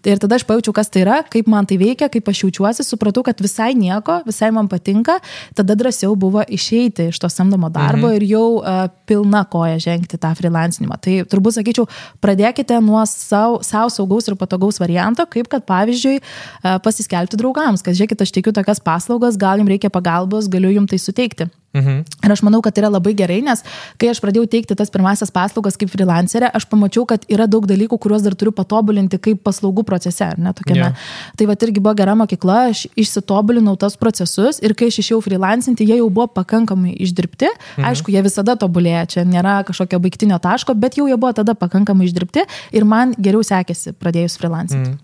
Ir tada aš pajaučiau, kas tai yra, kaip man tai veikia, kaip aš jaučiuosi, supratau, kad visai nieko, visai man patinka, tada drąsiau buvo išeiti iš to samdomo darbo ir jau pilna koja žengti tą freelancinimą. Tai turbūt sakyčiau, pradėkite nuo savo saugaus ir patogaus varianto, kaip kad pavyzdžiui pasiskelbti draugams, kad žiūrėkit, aš teikiu tokias paslaugas, gal jums reikia pagalbos, galiu jums tai suteikti. Ir aš manau, kad tai yra labai gerai, nes kai aš pradėjau teikti tas pirmasias paslaugas kaip freelancerė, aš pamačiau, kad yra daug dalykų, kuriuos dar turiu patobulinti kaip paslaugų procese, ar ne, tokiame. Tai irgi buvo gera mokykla, aš išsitobulinau tas procesus ir kai aš išėjau freelancinti, jie jau buvo pakankamai išdirbti. Aišku, jie visada tobulėja, čia nėra kažkokio baigtinio taško, bet jau jie buvo tada pakankamai išdirbti ir man geriau sekėsi pradėjus freelancinti.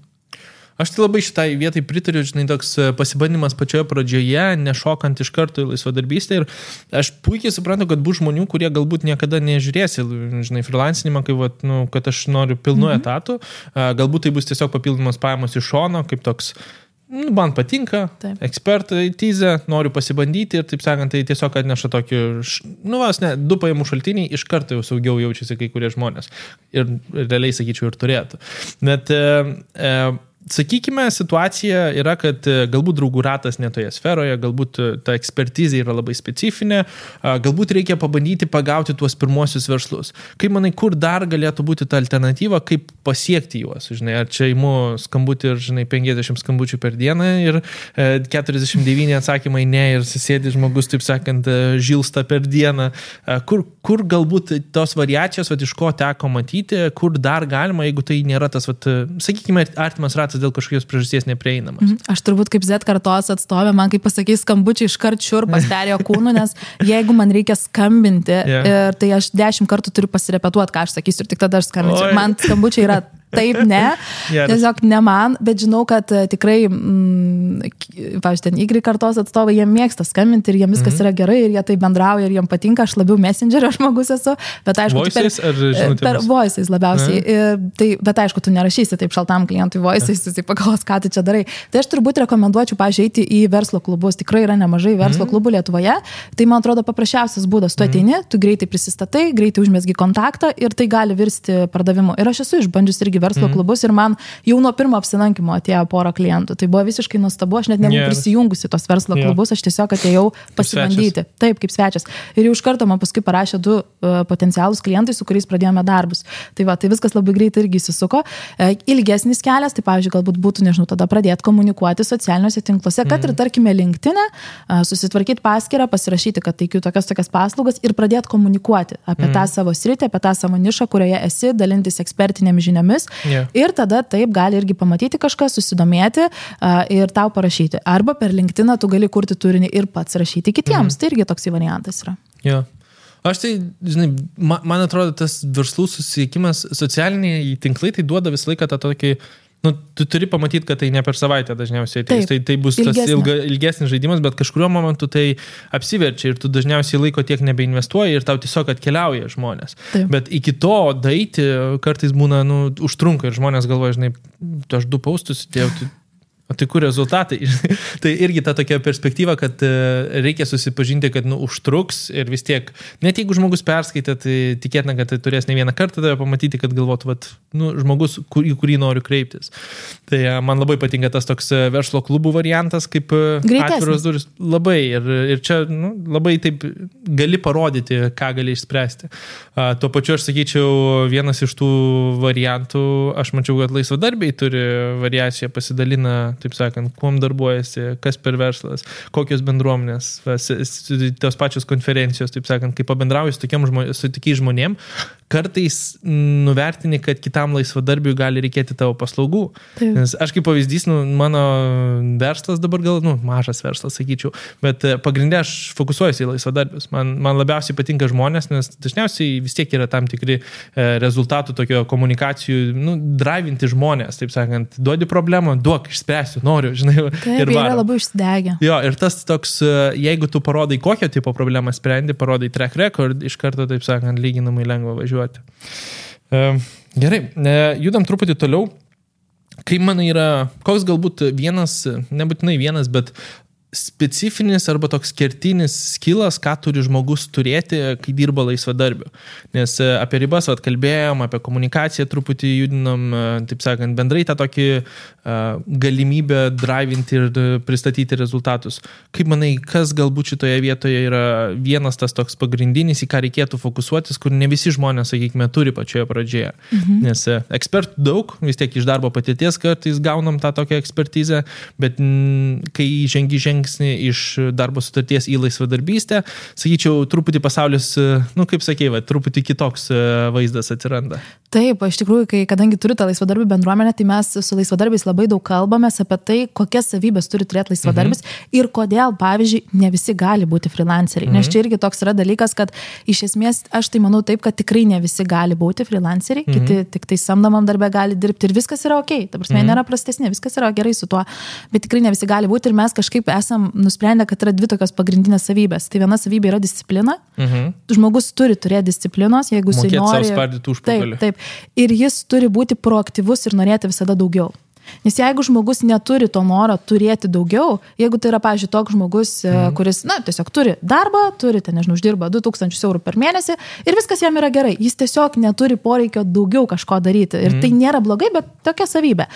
Aš tai labai šitai vietai pritariu, toks pasibandymas pačioje pradžioje, nešokant iš karto į laisvadarbystę ir aš puikiai suprantu, kad bus žmonių, kurie galbūt niekada nežiūrės į freelancinimą, kad aš noriu pilnu etatu, galbūt tai bus tiesiog papildomas pajamos iš šono, kaip toks man patinka, ekspertizė, noriu pasibandyti ir taip sakant, tai tiesiog atneša tokį, 2 pajamų šaltiniai, iš karto jau saugiau jaučiasi kai kurie žmonės ir realiai sakyčiau ir turėtų. Bet sakykime, situacija yra, kad galbūt draugų ratas netoje sferoje, galbūt ta ekspertizė yra labai specifinė, galbūt reikia pabandyti pagauti tuos pirmosius verslus. Kaip manai, kur dar galėtų būti ta alternatyva, kaip pasiekti juos? Žinai, ar čia imu skambutį ir, žinai, 50 skambučių per dieną ir 49 atsakymai ne ir susėdi žmogus, taip sakant, žilsta per dieną. Kur galbūt tos variacijos, iš ko teko matyti, kur dar galima, jeigu tai nėra tas, sakykime, artimas ratas dėl kažkokios priežasties neprieinamas. Aš turbūt kaip Z kartos atstovė, man kaip pasakys skambučiai iškart šiurpas perėjo kūnu, nes jeigu man reikia skambinti, tai aš 10 kartų turiu pasirepetuoti, ką aš sakysiu ir tik tada aš skambinsiu. Man skambučiai yra taip, ne, tiesiog ne man, bet žinau, kad tikrai, pavyzdžiui, ten Y kartos atstovai, jie mėgsta skambinti ir jiems viskas yra gerai ir jie tai bendrauja ir jiems patinka, aš labiau messengerio žmogus esu, bet aišku, per voices labiausiai, bet aišku, tu nerašysi taip šaltam klientui voices, jisai pagalvos, ką tu čia darai. Tai aš turbūt rekomenduočiau, pavyzdžiui, eiti į verslo klubus, tikrai yra nemažai verslo klubų Lietuvoje, tai man atrodo paprasčiausias būdas, tu ateini, tu greitai prisistatai, greitai užmesgi kontaktą ir tai gali virsti pardavimu. Ir aš esu išbandžius irgi verslo klubus ir man jau nuo pirmo apsilankimo atėjo porą klientų. Tai buvo visiškai nuostabu, aš net nebuvau prisijungusi tos verslo klubus, aš tiesiog atėjau pasibandyti. Taip, kaip svečias. Ir jau iš karto man paskui parašė 2 potencialūs klientai, su kuriais pradėjome darbus. Tai va, tai viskas labai greitai irgi įsisuko. Ilgesnis kelias, tai pavyzdžiui, galbūt būtų, nežinau, tada pradėti komunikuoti socialiniuose tinkluose, kad ir tarkime LinkedIn'e, susitvarkyti paskyrą, pasirašyti, kad teikiu tokias paslaugas ir pradėti komunikuoti apie tą savo sritį, apie tą savo nišą, kurioje esi, dalintis ekspertinėmis žiniomis. Ir tada taip gali irgi pamatyti kažką, susidomėti ir tau parašyti. Arba per LinkedIną tu gali kurti turinį ir pats rašyti kitiems. Tai irgi toks variantas yra. Aš tai, žinai, man atrodo, tas verslų susisiekimas, socialiniai tinklai, tai duoda visą laiką tą tokį, tu turi pamatyti, kad tai ne per savaitę dažniausiai ateis. Tai bus tas ilgesnis žaidimas, bet kažkuriuo momentu tai apsiverčia ir tu dažniausiai laiko tiek nebeinvestuoji ir tau tiesiog atkeliauja žmonės. Taip. Bet iki to daeiti kartais būna, užtrunka ir žmonės galvoja, žinai, aš 2 paustus įdėjau, tai kur rezultatai? Tai irgi ta tokia perspektyva, kad reikia susipažinti, kad užtruks ir vis tiek, net jeigu žmogus perskaitė, tai tikėtina, kad tai turės ne vieną kartą tave pamatyti, kad galvotų, žmogus, į kurį noriu kreiptis. Tai man labai patinka tas toks verslo klubų variantas, kaip atviros durys. Labai. Ir čia labai taip gali parodyti, ką gali išspręsti. Tuo pačiu aš sakyčiau, vienas iš tų variantų, aš mačiau, kad laisvadarbiai turi variaciją, pasidalina, taip sakant, kuom darbuojasi, kas per verslas, kokios bendruomenės, tos pačios konferencijos, taip sakant, kai pabendrauji su tokiais žmonėm, kartais nuvertini, kad kitam laisvadarbiui gali reikėti tavo paslaugų. Taip. Nes aš kaip pavyzdys, mano verslas dabar gal, mažas verslas, sakyčiau, bet pagrindė aš fokusuojuosi į laisvadarbius. Man labiausiai patinka žmonės, nes dažniausiai vis tiek yra tam tikri rezultatų tokio komunikacijų, drivinti žmonės, taip sakant, duodi problemą, duok, išspręsiu, noriu, žinai, taip, ir yra labai užsidegę. Jo, ir tas toks, jeigu tu parodai, kokio tipo problemą sprendi, parodai track record, iš karto, taip sakant, lyginamai lengva važiuoti. Gerai, judam truputį toliau. Kaip manai yra, koks galbūt vienas, nebūtinai vienas, bet specifinis arba toks kertinis skilas, ką turi žmogus turėti, kai dirba laisvadarbiu. Nes apie ribas kalbėjom, apie komunikaciją truputį judinom, taip sakant, bendrai tą tokį galimybę drivinti ir pristatyti rezultatus. Kaip manai, kas galbūt šitoje vietoje yra vienas tas toks pagrindinis, į ką reikėtų fokusuotis, kur ne visi žmonės, sakykime, turi pačioje pradžioje. Nes ekspertų daug, vis tiek iš darbo patirties kartais gaunam tą tokią ekspertizę, bet kai žengi iš darbo sutarties į laisvadarbystę, sakyčiau, truputį pasaulis, kaip sakėjai, truputį kitoks vaizdas atsiranda. Taip, iš tikrųjų, kadangi turiu tą laisvadarbių bendruomenę, tai mes su laisvadarbiais labai daug kalbamės apie tai, kokias savybės turi turėti laisvadarbis ir kodėl, pavyzdžiui, ne visi gali būti freelanceriai. Nes čia irgi toks yra dalykas, kad iš esmės aš tai manau taip, kad tikrai ne visi gali būti freelanceriai, kiti tik tai samdomam darbę gali dirbti ir viskas yra okei. Ta prasme, nėra prastesnė, viskas yra gerai su tuo, bet tikrai ne visi gali būti ir mes kažkaip esam nusprendę, kad yra 2 tokios pagrindinės savybės. Tai viena savybė yra disciplina. Žmogus turi turėti disciplinos, jeigu jis nori. Mokėti savo spardyti užpakalį. Taip. Ir jis turi būti proaktyvus ir norėti visada daugiau. Nes jeigu žmogus neturi to noro turėti daugiau, jeigu tai yra, pavyzdžiui, toks žmogus, kuris, tiesiog turi darbą, turi, nežinau, uždirba 2000 eurų per mėnesį ir viskas jam yra gerai, jis tiesiog neturi poreikio daugiau kažko daryti ir tai nėra blogai, bet tokia savybė.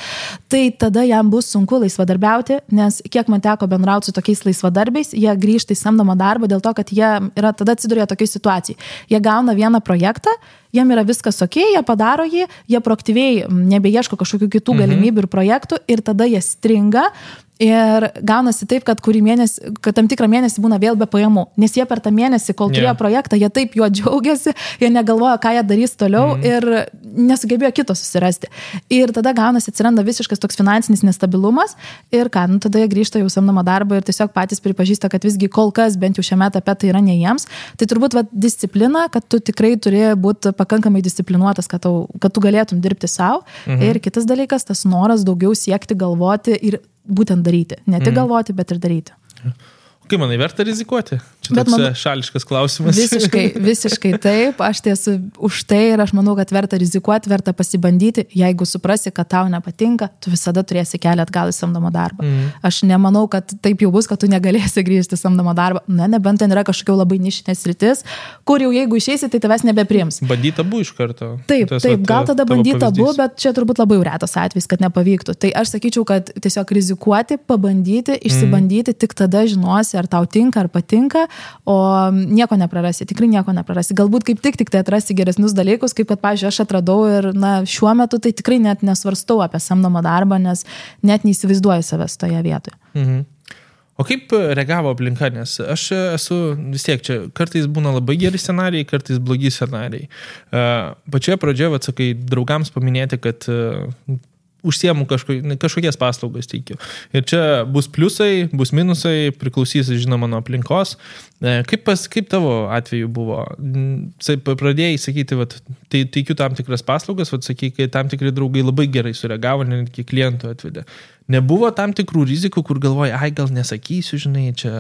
Tai tada jam bus sunku laisvadarbiauti, nes kiek man teko bendrauti su tokiais laisvadarbiais, jie grįžta į samdomą darbą dėl to, kad jie yra tada atsiduria tokiai situacijai. Jie gauna vieną projektą, jiem yra viskas okei, jie padaro jį, jie proaktyviai nebeieško kažkokių kitų galimybių ir projektų ir tada jie stringa ir gaunasi taip, kad tam tikrą mėnesį būna vėl be pajamų, nes jie per tą mėnesį, kol turėjo projektą, jie taip juo džiaugiasi, jie negalvoja, ką jie darys toliau ir nesugebėjo kito susirasti. Ir tada gaunasi, atsiranda visiškas toks finansinis nestabilumas ir tada jie grįžta jau samdomą darbą ir tiesiog patys pripažįsta, kad visgi kol kas bent jau šiame etape tai yra ne jiems. Tai turbūt disciplina, kad tu tikrai turi būti pakankamai disciplinuotas, kad tu galėtum dirbti savo. Ir kitas dalykas, tas noras daugiau siekti, galvoti ir būtent daryti. Ne tik galvoti, bet ir daryti. Kaip manai, verta rizikuoti? Čia toks šališkas klausimas. Visiškai taip. Aš esu už tai ir aš manau, kad verta rizikuoti, verta pasibandyti. Jeigu suprasi, kad tau nepatinka, tu visada turėsi kelią atgal į samdomą darbą. Aš nemanau, kad taip jau bus, kad tu negalėsi grįžti į samdomą darbą. Nebent ten yra kažkokia labai nišinės sritis, kur jau jeigu išeisi, tai tavęs nebepriims. Bandyt abu iš karto. Taip, gal tada bandyt abu, bet čia turbūt labai retas atvejis, kad nepavyktų. Tai aš sakyčiau, kad tiesiog rizikuoti, pabandyti, išsibandyti, tik tada žinosi, ar tau tinka, ar patinka, o nieko neprarasi, tikrai nieko neprarasi. Galbūt kaip tik tai atrasti geresnius dalykus, kaip kad, pavyzdžiui, aš atradau ir šiuo metu tai tikrai net nesvarstau apie samdomą darbą, nes net neįsivaizduoju savęs toje vietoje. O kaip reagavo aplinka, nes aš esu vis tiek čia, kartais būna labai geri scenarijai, kartais blogi scenarijai. Pačioje pradžioje, sakai, draugams paminėti, kad užsiemu kažkokias paslaugas teikiu. Ir čia bus pliusai, bus minusai, priklausys, žinoma, nuo aplinkos. Kaip tavo atveju buvo? Pradėjai sakyti, tai teikiu tam tikras paslaugas, sakai, kai tam tikri draugai labai gerai sureagavo, netgi klientų atvedė. Nebuvo tam tikrų rizikų, kur galvoji, gal nesakysiu, žinai, čia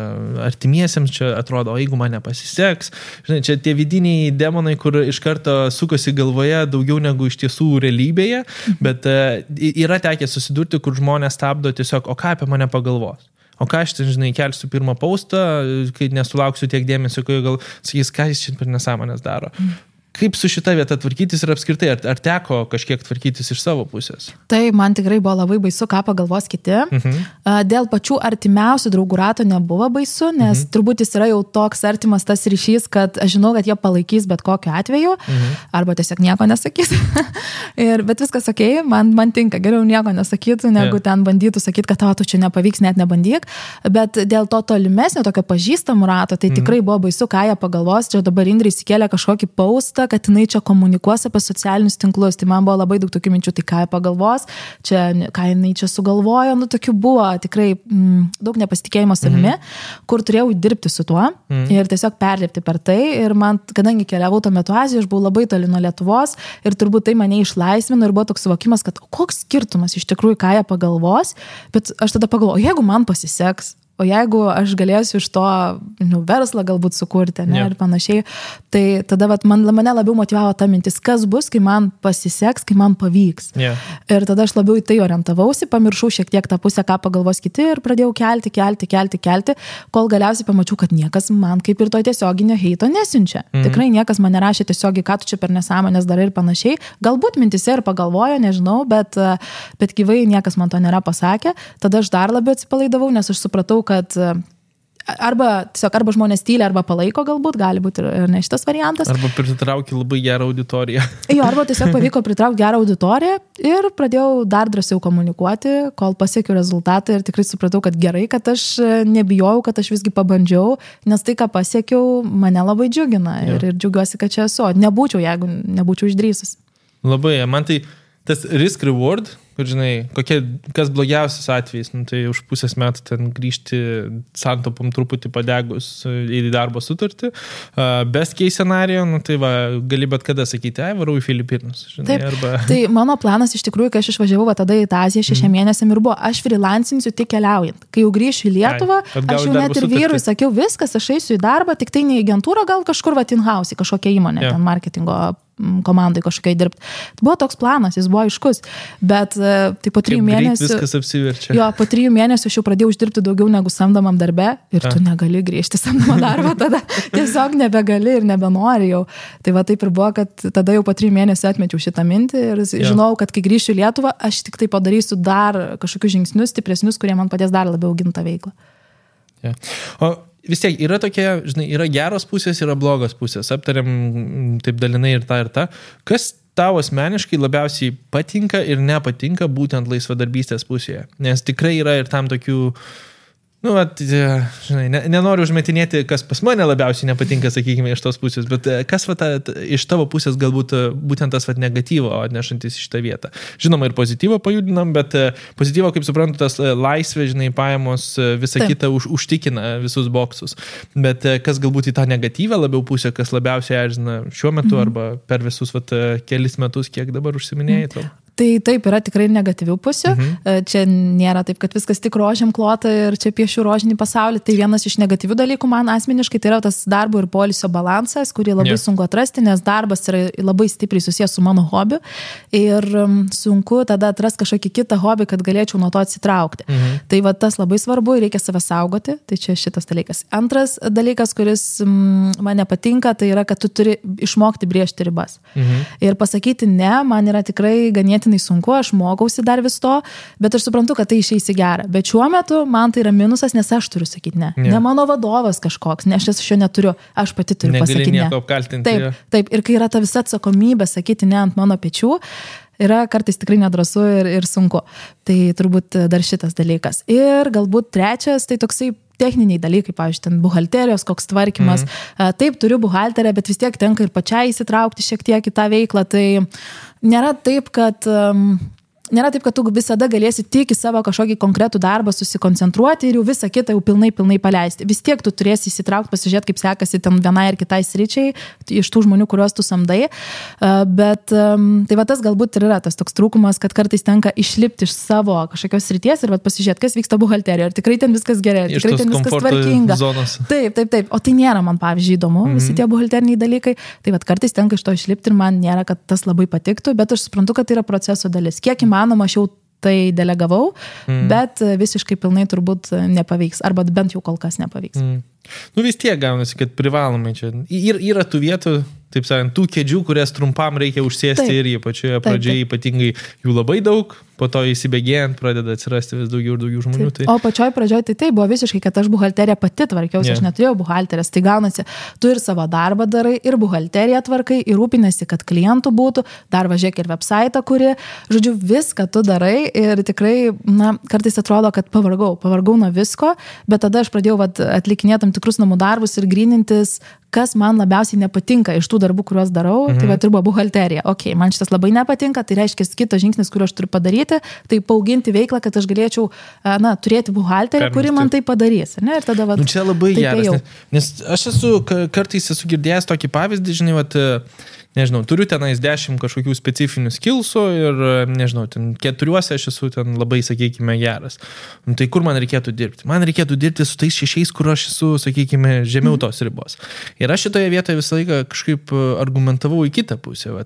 artimiesiems čia atrodo, o jeigu man nepasiseks, žinai, čia tie vidiniai demonai, kur iš karto sukosi galvoje daugiau negu iš tiesų realybėje, bet yra tekę susidurti, kur žmonės stabdo tiesiog, o ką apie mane pagalvos? O ką aš ten, žinai, kelsiu pirmą postą, kai nesulauksiu tiek dėmesio, kai gal sakys, ką jis čia per nesąmonės daro. Kaip su šita vieta tvarkytis ir apskritai, ar teko kažkiek tvarkytis iš savo pusės? Tai man tikrai buvo labai baisu, ką pagalvos kiti. Dėl pačių artimiausių draugų rato nebuvo baisu, nes turbūt jis yra jau toks artimas tas ryšys, kad aš žinau, kad jie palaikys bet kokiu atveju, arba tiesiog nieko nesakys. Bet viskas okei, man tinka, geriau nieko nesakytų, negu ten bandytų sakyti, kad tu čia nepavyks, net nebandyk. Bet dėl to tolimesnio, tokio pažįstamų rato, tai tikrai buvo baisu, ką jie pagalvos. Čia dabar Indrė įsikėlė kažkokį postą, kad jinai čia komunikuos apie socialinius tinklus. Tai man buvo labai daug tokių minčių, tai ką jie pagalvos, ką jinai čia sugalvojo, tokių buvo tikrai daug nepasitikėjimo savimi, kur turėjau dirbti su tuo ir tiesiog perlipti per tai. Ir man, kadangi keliavau tuo metu Azijoje, aš buvau labai toli nuo Lietuvos ir turbūt tai mane išlaisvino ir buvo toks suvokimas, kad koks skirtumas iš tikrųjų, ką jie pagalvos, bet aš tada pagalvoju, jeigu man pasiseks, o jeigu aš galėsiu iš to verslą galbūt sukurti, ir panašiai, tai tada mane labiau motyvavo ta mintis, kas bus, kai man pasiseks, kai man pavyks. Ir tada aš labiau į tai orientavausi, pamiršau šiek tiek tą pusę, ką pagalvos kiti ir pradėjau kelti, kol galiausiai pamačiau, kad niekas man kaip ir to tiesioginio heito nesiunčia. Tikrai niekas man nerašė tiesiogiai, ką tu čia per nesąmonės darai ir panašiai. Galbūt mintise ir pagalvojo, nežinau, bet gyvai niekas man to nėra pasakę. Tada aš dar labiau atsipalaidavau, nes aš supratau, kad arba žmonės tyli, arba palaiko galbūt, gali būti ir ne šitas variantas. Arba pritraukti labai gerą auditoriją. Arba tiesiog pavyko pritraukti gerą auditoriją ir pradėjau dar drąsiau komunikuoti, kol pasiekiau rezultatą ir tikrai supratau, kad gerai, kad aš nebijojau, kad aš visgi pabandžiau, nes tai, ką pasiekiau, mane labai džiugina ir džiugiuosi, kad čia esu. Nebūčiau, jeigu nebūčiau išdrįsus. Labai, man tai tas risk reward, kur žinai, kas blogiausias atvejis, tai už pusės metų ten grįžti santopom truputį padegus į darbo sutartį. Best case scenario, tai gali bet kada sakyti, varau į Filipinus. Žinai, taip, tai mano planas iš tikrųjų, kai aš išvažiavau tada į Aziją 6 mėnesiam ir buvo, aš freelancinsiu tik keliaujant. Kai jau grįšiu į Lietuvą, aš jau net ir vyrui sakiau, viskas, aš eisiu į darbą, tik tai ne į agentūrą, gal kažkur in-house, kažkokią įmonę, ten marketingo komandai kažkokiai dirbti. Tai buvo toks planas, jis buvo aiškus, bet tai po 3 mėnesių... Viskas apsiverčia. Jo, po 3 mėnesių aš jau pradėjau uždirbti daugiau negu samdomam darbe ir tu negali grįžti samdomą darbą, tada tiesiog nebegali ir nebenori jau. Tai va taip ir buvo, kad tada jau po 3 mėnesių atmečiau šitą mintį ir žinau, kad kai grįšiu į Lietuvą, aš tik tai padarysiu dar kažkokius žingsnius stipresnius, kurie man padės dar labiau auginti tą veiklą. Ja. O vis tiek yra tokie, žinai, yra geros pusės, yra blogos pusės. Aptariam taip dalinai ir tą. Kas tau asmeniškai labiausiai patinka ir nepatinka būtent laisvadarbystės pusėje? Nes tikrai yra ir tam tokių, žinai, nenoriu užmetinėti, kas pas mane labiausiai nepatinka, sakykime, iš tos pusės, bet kas iš tavo pusės galbūt būtent tas negatyvo atnešantis iš tą vietą. Žinoma, ir pozityvo pajudinam, bet pozityvo, kaip suprantu, tas laisvė, žinai, pajamos, visa kita užtikina visus boksus. Bet kas galbūt į tą negatyvą labiau pusę, kas labiausiai erzina šiuo metu arba per visus kelis metus, kiek dabar užsiminėjai tau? Tai taip, yra tikrai negatyvių pusių. Čia nėra taip, kad viskas tik rožėm klota ir čia piešiu rožinį pasaulį. Tai vienas iš negatyvių dalykų man asmeniškai tai yra tas darbo ir poilsio balansas, kurį labai sunku atrasti, nes darbas yra labai stipriai susijęs su mano hobiu ir sunku tada atrasti kažkokį kitą hobį, kad galėčiau nuo to atsitraukti. Tai va tas labai svarbu ir reikia save saugoti. Tai čia šitas dalykas. Antras dalykas, kuris man nepatinka, tai yra, kad tu turi išmokti brėžti ribas. Ir pasakyti ne, man yra tikrai ganėtinai sunku, aš mokausi dar vis to, bet aš suprantu, kad tai išeis į gerą. Bet šiuo metu man tai yra minusas, nes aš turiu sakyti ne. Ne mano vadovas kažkoks, nes aš šio neturiu, aš pati turiu pasakyti ne. Apkaltinti. Taip, ir kai yra ta visa atsakomybė sakyti ne ant mano pečių, yra kartais tikrai nedrąsu ir sunku. Tai turbūt dar šitas dalykas. Ir galbūt trečias, tai toksai techniniai dalykai, pavyzdžiui, ten buhalterijos, koks tvarkymas. Taip, turiu buhalterę, bet vis tiek tenka ir pačiai įsitraukti šiek tiek į tą veiklą. Tai nėra taip, kad tu visada galėsi tik į savo kažkokį konkretų darbą susikoncentruoti ir jau visą kitą jau pilnai paleisti. Vis tiek tu turėsi įsitraukti, pasižiūrėti, kaip sekasi ten vienai ir kitai sričiai iš tų žmonių, kuriuos tu samdai. Bet tai va tas galbūt ir yra tas toks trūkumas, kad kartais tenka išlipti iš savo kažkokios srities ir pasižiūrėti, kas vyksta buhalterijoje. Ar tikrai ten viskas gerai, ar tikrai ten viskas tvarkinga. Taip. O tai nėra man, pavyzdžiui, įdomu, visi tie buhalteriniai dalykai. Tai va kartais tenka iš to išlipti ir man nėra, kad tas labai patiktų, bet aš suprantu, kad tai yra proceso dalis. Kiek įmanoma, aš jau tai delegavau, bet visiškai pilnai turbūt nepavyks, arba bent jau kol kas nepavyks. Vis tiek gaunasi, kad privalomai čia. Yra tų vietų, taip sakant, tų kėdžių, kurias trumpam reikia užsėsti ir pačioje pradžioje ypatingai jų labai daug, po to įsibėgėjant pradeda atsirasti vis daugiau ir daugiau žmonių. Tai... O pačioj pradžioje tai buvo visiškai, kad aš buhalteriją pati tvarkiausi, aš neturėjau buhalterės, tai gaunasi, tu ir savo darbą darai, ir buhalteriją tvarkai, ir rūpinasi, kad klientų būtų, dar važiuok ir website, kuri, žodžiu, viską tu darai ir tikrai, kartais atrodo, kad pavargau nuo visko, bet tada aš pradėjau atlikinėti tam tikrus namų darbus ir grynintis, kas man labiausiai nepatinka iš tų darbų, kuriuos darau, tai ir buvo buhalterija. Man šitas labai nepatinka, tai reiškia kitas žingsnis, kurį aš turiu padaryti, tai paauginti veiklą, kad aš galėčiau turėti buhalteriją, kuri man tai padarys. Ne? Ir tada, čia labai geras, nes aš kartais esu girdėjęs tokį pavyzdį, žinai, nežinau, turiu tenais 10 kažkokių specifinių skillsų ir, nežinau, ten 4 aš esu ten labai, sakykime, geras. Tai kur man reikėtų dirbti? Man reikėtų dirbti su tais 6, kur aš esu, sakykime, žemiau tos ribos. Ir aš šitoje vietoje visą laiką kažkaip argumentavau į kitą pusę.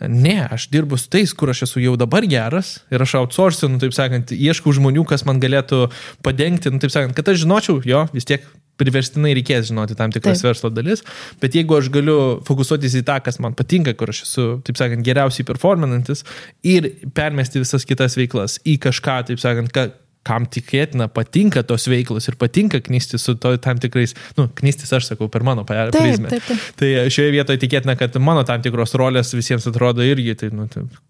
Ne, aš dirbu su tais, kur aš esu jau dabar geras ir aš outsourcinu, taip sakant, ieškau žmonių, kas man galėtų padengti, taip sakant, kad aš žinočiau, vis tiek priverstinai reikės žinoti tam tikras verslo dalis, bet jeigu aš galiu fokusuotis į tą, kas man patinka, kur aš esu, taip sakant, geriausiai performanantis ir permesti visas kitas veiklas į kažką, taip sakant, kam tikėtina patinka tos veiklos ir patinka knistis su tam tikrais, knistis aš sakau per mano prizmę. Taip. Tai šioje vietoje tikėtina, kad mano tam tikros rolės visiems atrodo irgi, tai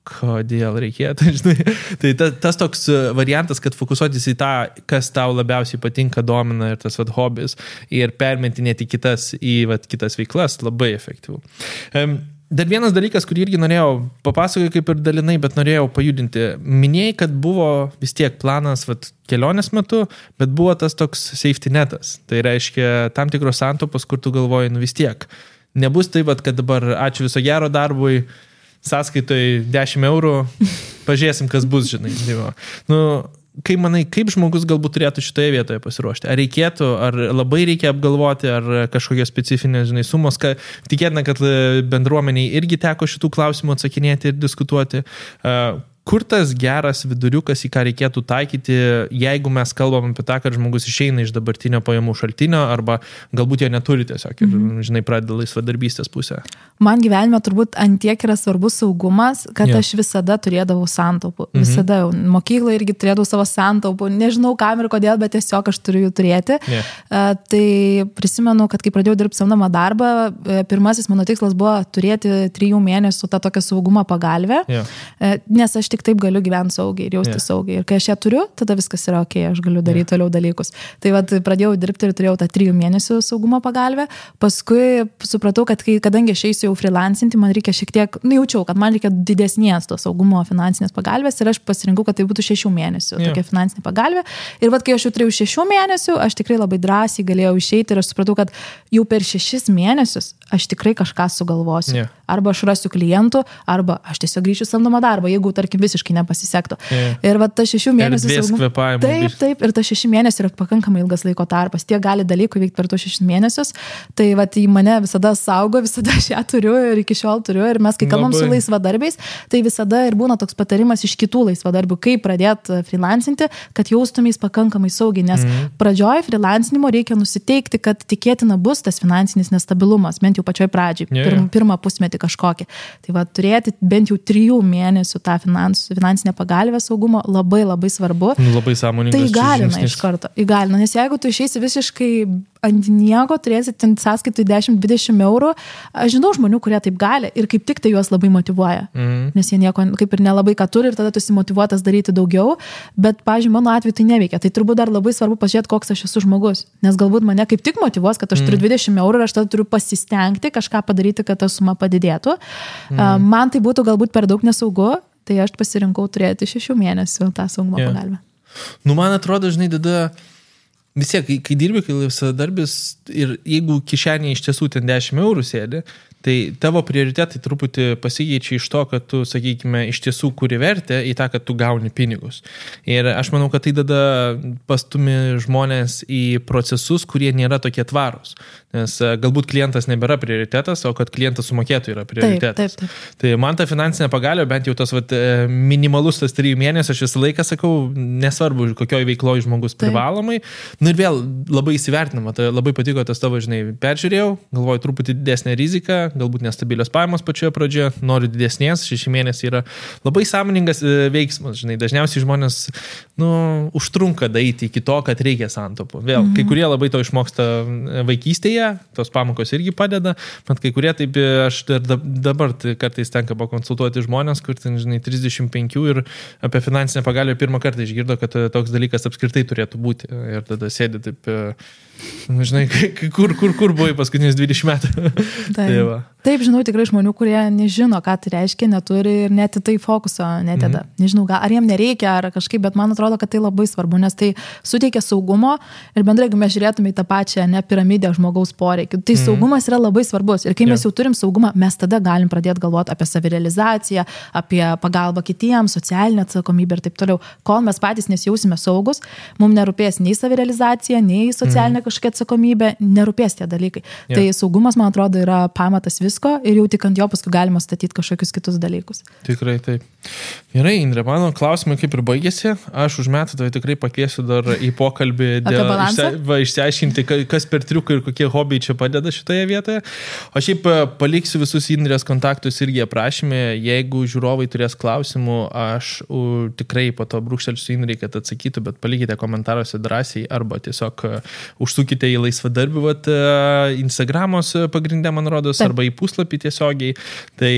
kodėl reikėtų, žinai. Tai tas toks variantas, kad fokusuotis į tą, kas tau labiausiai patinka, domina ir tas hobis ir permetinėti kitas veiklas, labai efektyvu. Dar vienas dalykas, kurį irgi norėjau papasakoti kaip ir dalinai, bet norėjau pajudinti. Minėjai, kad buvo vis tiek planas kelionės metu, bet buvo tas toks safety netas. Tai reiškia tam tikros santopos, kur tu galvoji, vis tiek. Nebus taip, kad dabar ačiū viso gero darbui, sąskaitoj 10 eurų, pažiūrėsim, kas bus, žinai. Kaip manai, kaip žmogus galbūt turėtų šitoje vietoje pasiruošti? Ar reikėtų, ar labai reikia apgalvoti, ar kažkokios specifinės, sumos, tikėtina, kad bendruomeniai irgi teko šitų klausimų atsakinėti ir diskutuoti. Kur tas geras viduriukas, į ką reikėtų taikyti, jeigu mes kalbam apie tą, kad žmogus išeina iš dabartinio pajamų šaltinio arba galbūt jo neturi tiesiog ir, pradeda laisvadarbystės pusę? Man gyvenime turbūt antiek yra svarbus saugumas, kad aš visada turėdavau santaupų. Visada mokykloje irgi turėdavau savo santaupų. Nežinau kam ir kodėl, bet tiesiog aš turiu jų turėti. Tai prisimenu, kad kai pradėjau dirbti samdomą darbą, pirmasis mano tikslas buvo turėti 3 mėnesių tą tokią saugumo pagalvę, nes aš tik taip galiu gyventi saugiai ir jausti saugiai. Ir kai aš ją turiu, tada viskas yra ok, aš galiu daryti toliau dalykus. Tai pradėjau dirbti ir turėjau tą 3 mėnesių saugumo pagalbę. Paskui supratau, kad kadangi aš eisiu jau freelancinti, man reikia šiek tiek, jaučiau, kad man reikia didesnės to saugumo finansinės pagalbės ir aš pasirinkau, kad tai būtų 6 mėnesių tokia finansinė pagalbė. Ir kai aš jau turėjau 6 mėnesių, aš tikrai labai drąsiai galėjau išeiti ir aš supratau, kad jau per 6 mėnesius aš tikrai kažką sugalvosiu. Arba aš rasiu klientų, arba aš tiesiog grįšiu samdomą darbą, jeigu, tarkim, visiškai nepasisektų. Ir ta 6 mėnesių... Taip, ir ta 6 mėnesių yra pakankamai ilgas laiko tarpas. Tie gali dalykų veikti per tuos 6 mėnesius. Tai į mane visada saugo, visada aš ją turiu ir iki šiol turiu. Ir mes, kai kalbam su laisvadarbiais, tai visada ir būna toks patarimas iš kitų laisvadarbių, kaip pradėti freelancinti, kad jaustumės pakankamai saugiai. Nes pradžioj freelancinimo reikia nusiteikti, kad tikėtina bus tas finansinis nestabilumas, bent jau pačioj pradžiai, pirmą pusmetį kažkokį. Tai turėti bent jau 3 mėnesių tą finansinę pagalbę saugumo labai labai svarbu. Labai sąmoningas. Tai įgalina iš karto. Įgalina, nes jeigu tu išeisi visiškai ant nieko, turėsi sąskaitai 10-20 eurų, aš žinau žmonių, kurie taip gali ir kaip tik tai juos labai motyvuoja. Nes jie nieko kaip ir nelabai ką turi ir tada tu esi motyvuotas daryti daugiau, bet, pavyzdžiui, mano atveju tai neveikia. Tai turbūt dar labai svarbu pažiūrėti, koks aš esu žmogus. Nes galbūt mane kaip tik motyvuos, kad aš turiu 20 eurų ir aš tada turiu pasistengti kažką padaryti, kad ta suma padidėtų. Man tai būtų galbūt per daug nesaugu, tai aš pasirinkau turėti 6 mėnesių tą saugumo pagalbę. Man atrodo, tada vis tiek, kai dirbi, kai laisvadarbis ir jeigu kišenėje iš tiesų ten 10 eurų sėdi, tai tavo prioritetai truputį pasikeičia iš to, kad tu, sakykime, iš tiesų kuri vertę į tą, kad tu gauni pinigus. Ir aš manau, kad tai tada pastumi žmonės į procesus, kurie nėra tokie tvarūs. Nes galbūt klientas nebėra prioritetas, o kad klientas sumokėtų yra prioritetas. Taip. Tai man ta finansinė pagalbė, bent jau tas minimalus tas 3 mėnesių, aš visą laiką sakau, nesvarbu, kokioj veikloje žmogus privalomai. Ir vėl labai įsivertinama, tai labai patiko tas tavo, peržiūrėjau, galvoju truputį didesnę riziką, galbūt nestabilios pajamos pačioje pradžioje, noriu didesnės, 6 mėnesiai yra labai sąmoningas veiksmas, dažniausiai žmonės, užtrunka daeiti iki to, kad reikia santaupų. Vėl, kai kurie labai to išmoksta vaikystėje, tos pamokos irgi padeda, bet kai kurie taip, aš dabar kartais tenka pakonsultuoti žmonės, kur 35 ir apie finansinę pagalbę pirmą kartą išgirdo, kad toks dalykas apskritai turėtų būti. Ir tada sėdi taip, kur buvai paskutinius 20 metų. Taip, žinau tikrai žmonių, kurie nežino, ką tai reiškia, neturi ir net į tai fokuso neteda. Nežinau, ar jiem nereikia, ar kažkaip, bet man atrodo, kad tai labai svarbu, nes tai suteikia saugumo ir bendrai, jeigu mes žiūrėtume į tą pačią piramidę žmogaus poreikių, tai saugumas yra labai svarbus. Ir kai mes jau turim saugumą, mes tada galim pradėti galvoti apie savirealizaciją, apie pagalbą kitiems, socialinę atsakomybę ir taip toliau. Kol mes patys nesijausime saugus, mums nerūpės nei savirealizacija, nei socialinė kažkokia atsakomybė, nerūpės tie dalykai. Tai saugumas, man atrodo, yra pamatas visko ir jau tik ant jo paskui galima statyti kažkokius kitus dalykus. Tikrai taip. Gerai, Indrė, mano klausimai kaip ir baigėsi. Aš už metų tai tikrai pakviesiu dar į pokalbį išsiaiškinti, kas per triukai ir kokie hobiai čia padeda šitoje vietoje. O šiaip paliksiu visus Indrės kontaktus irgi aprašymė. Jeigu žiūrovai turės klausimų, aš tikrai po to brūkštelsiu Indrei, kad atsakytų, bet palikite komentaruose drąsiai arba tiesiog užsukite į laisvadarbių Instagramos pagrindę, man rodos, arba į puslapį tiesiogiai. Tai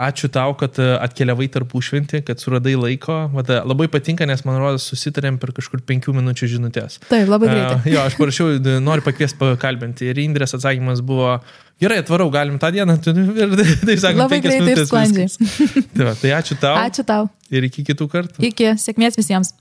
ačiū tau, kad atkeliavai tarpušventį, kad suradai laiko. Labai patinka, nes man rodos susitarėm per kažkur 5 minučių žinutės. Taip, labai greitai. Jo, aš parašiau, noriu pakviesti pakalbinti. Ir Indrės atsakymas buvo, gerai, atvarau, galim tą dieną. Ir taip sakant, labai 5 minutės. Labai greitai ir sklandžiai. Tai ačiū tau. Ačiū tau. Ir iki kitų kartų. Iki, sėkmės visiems.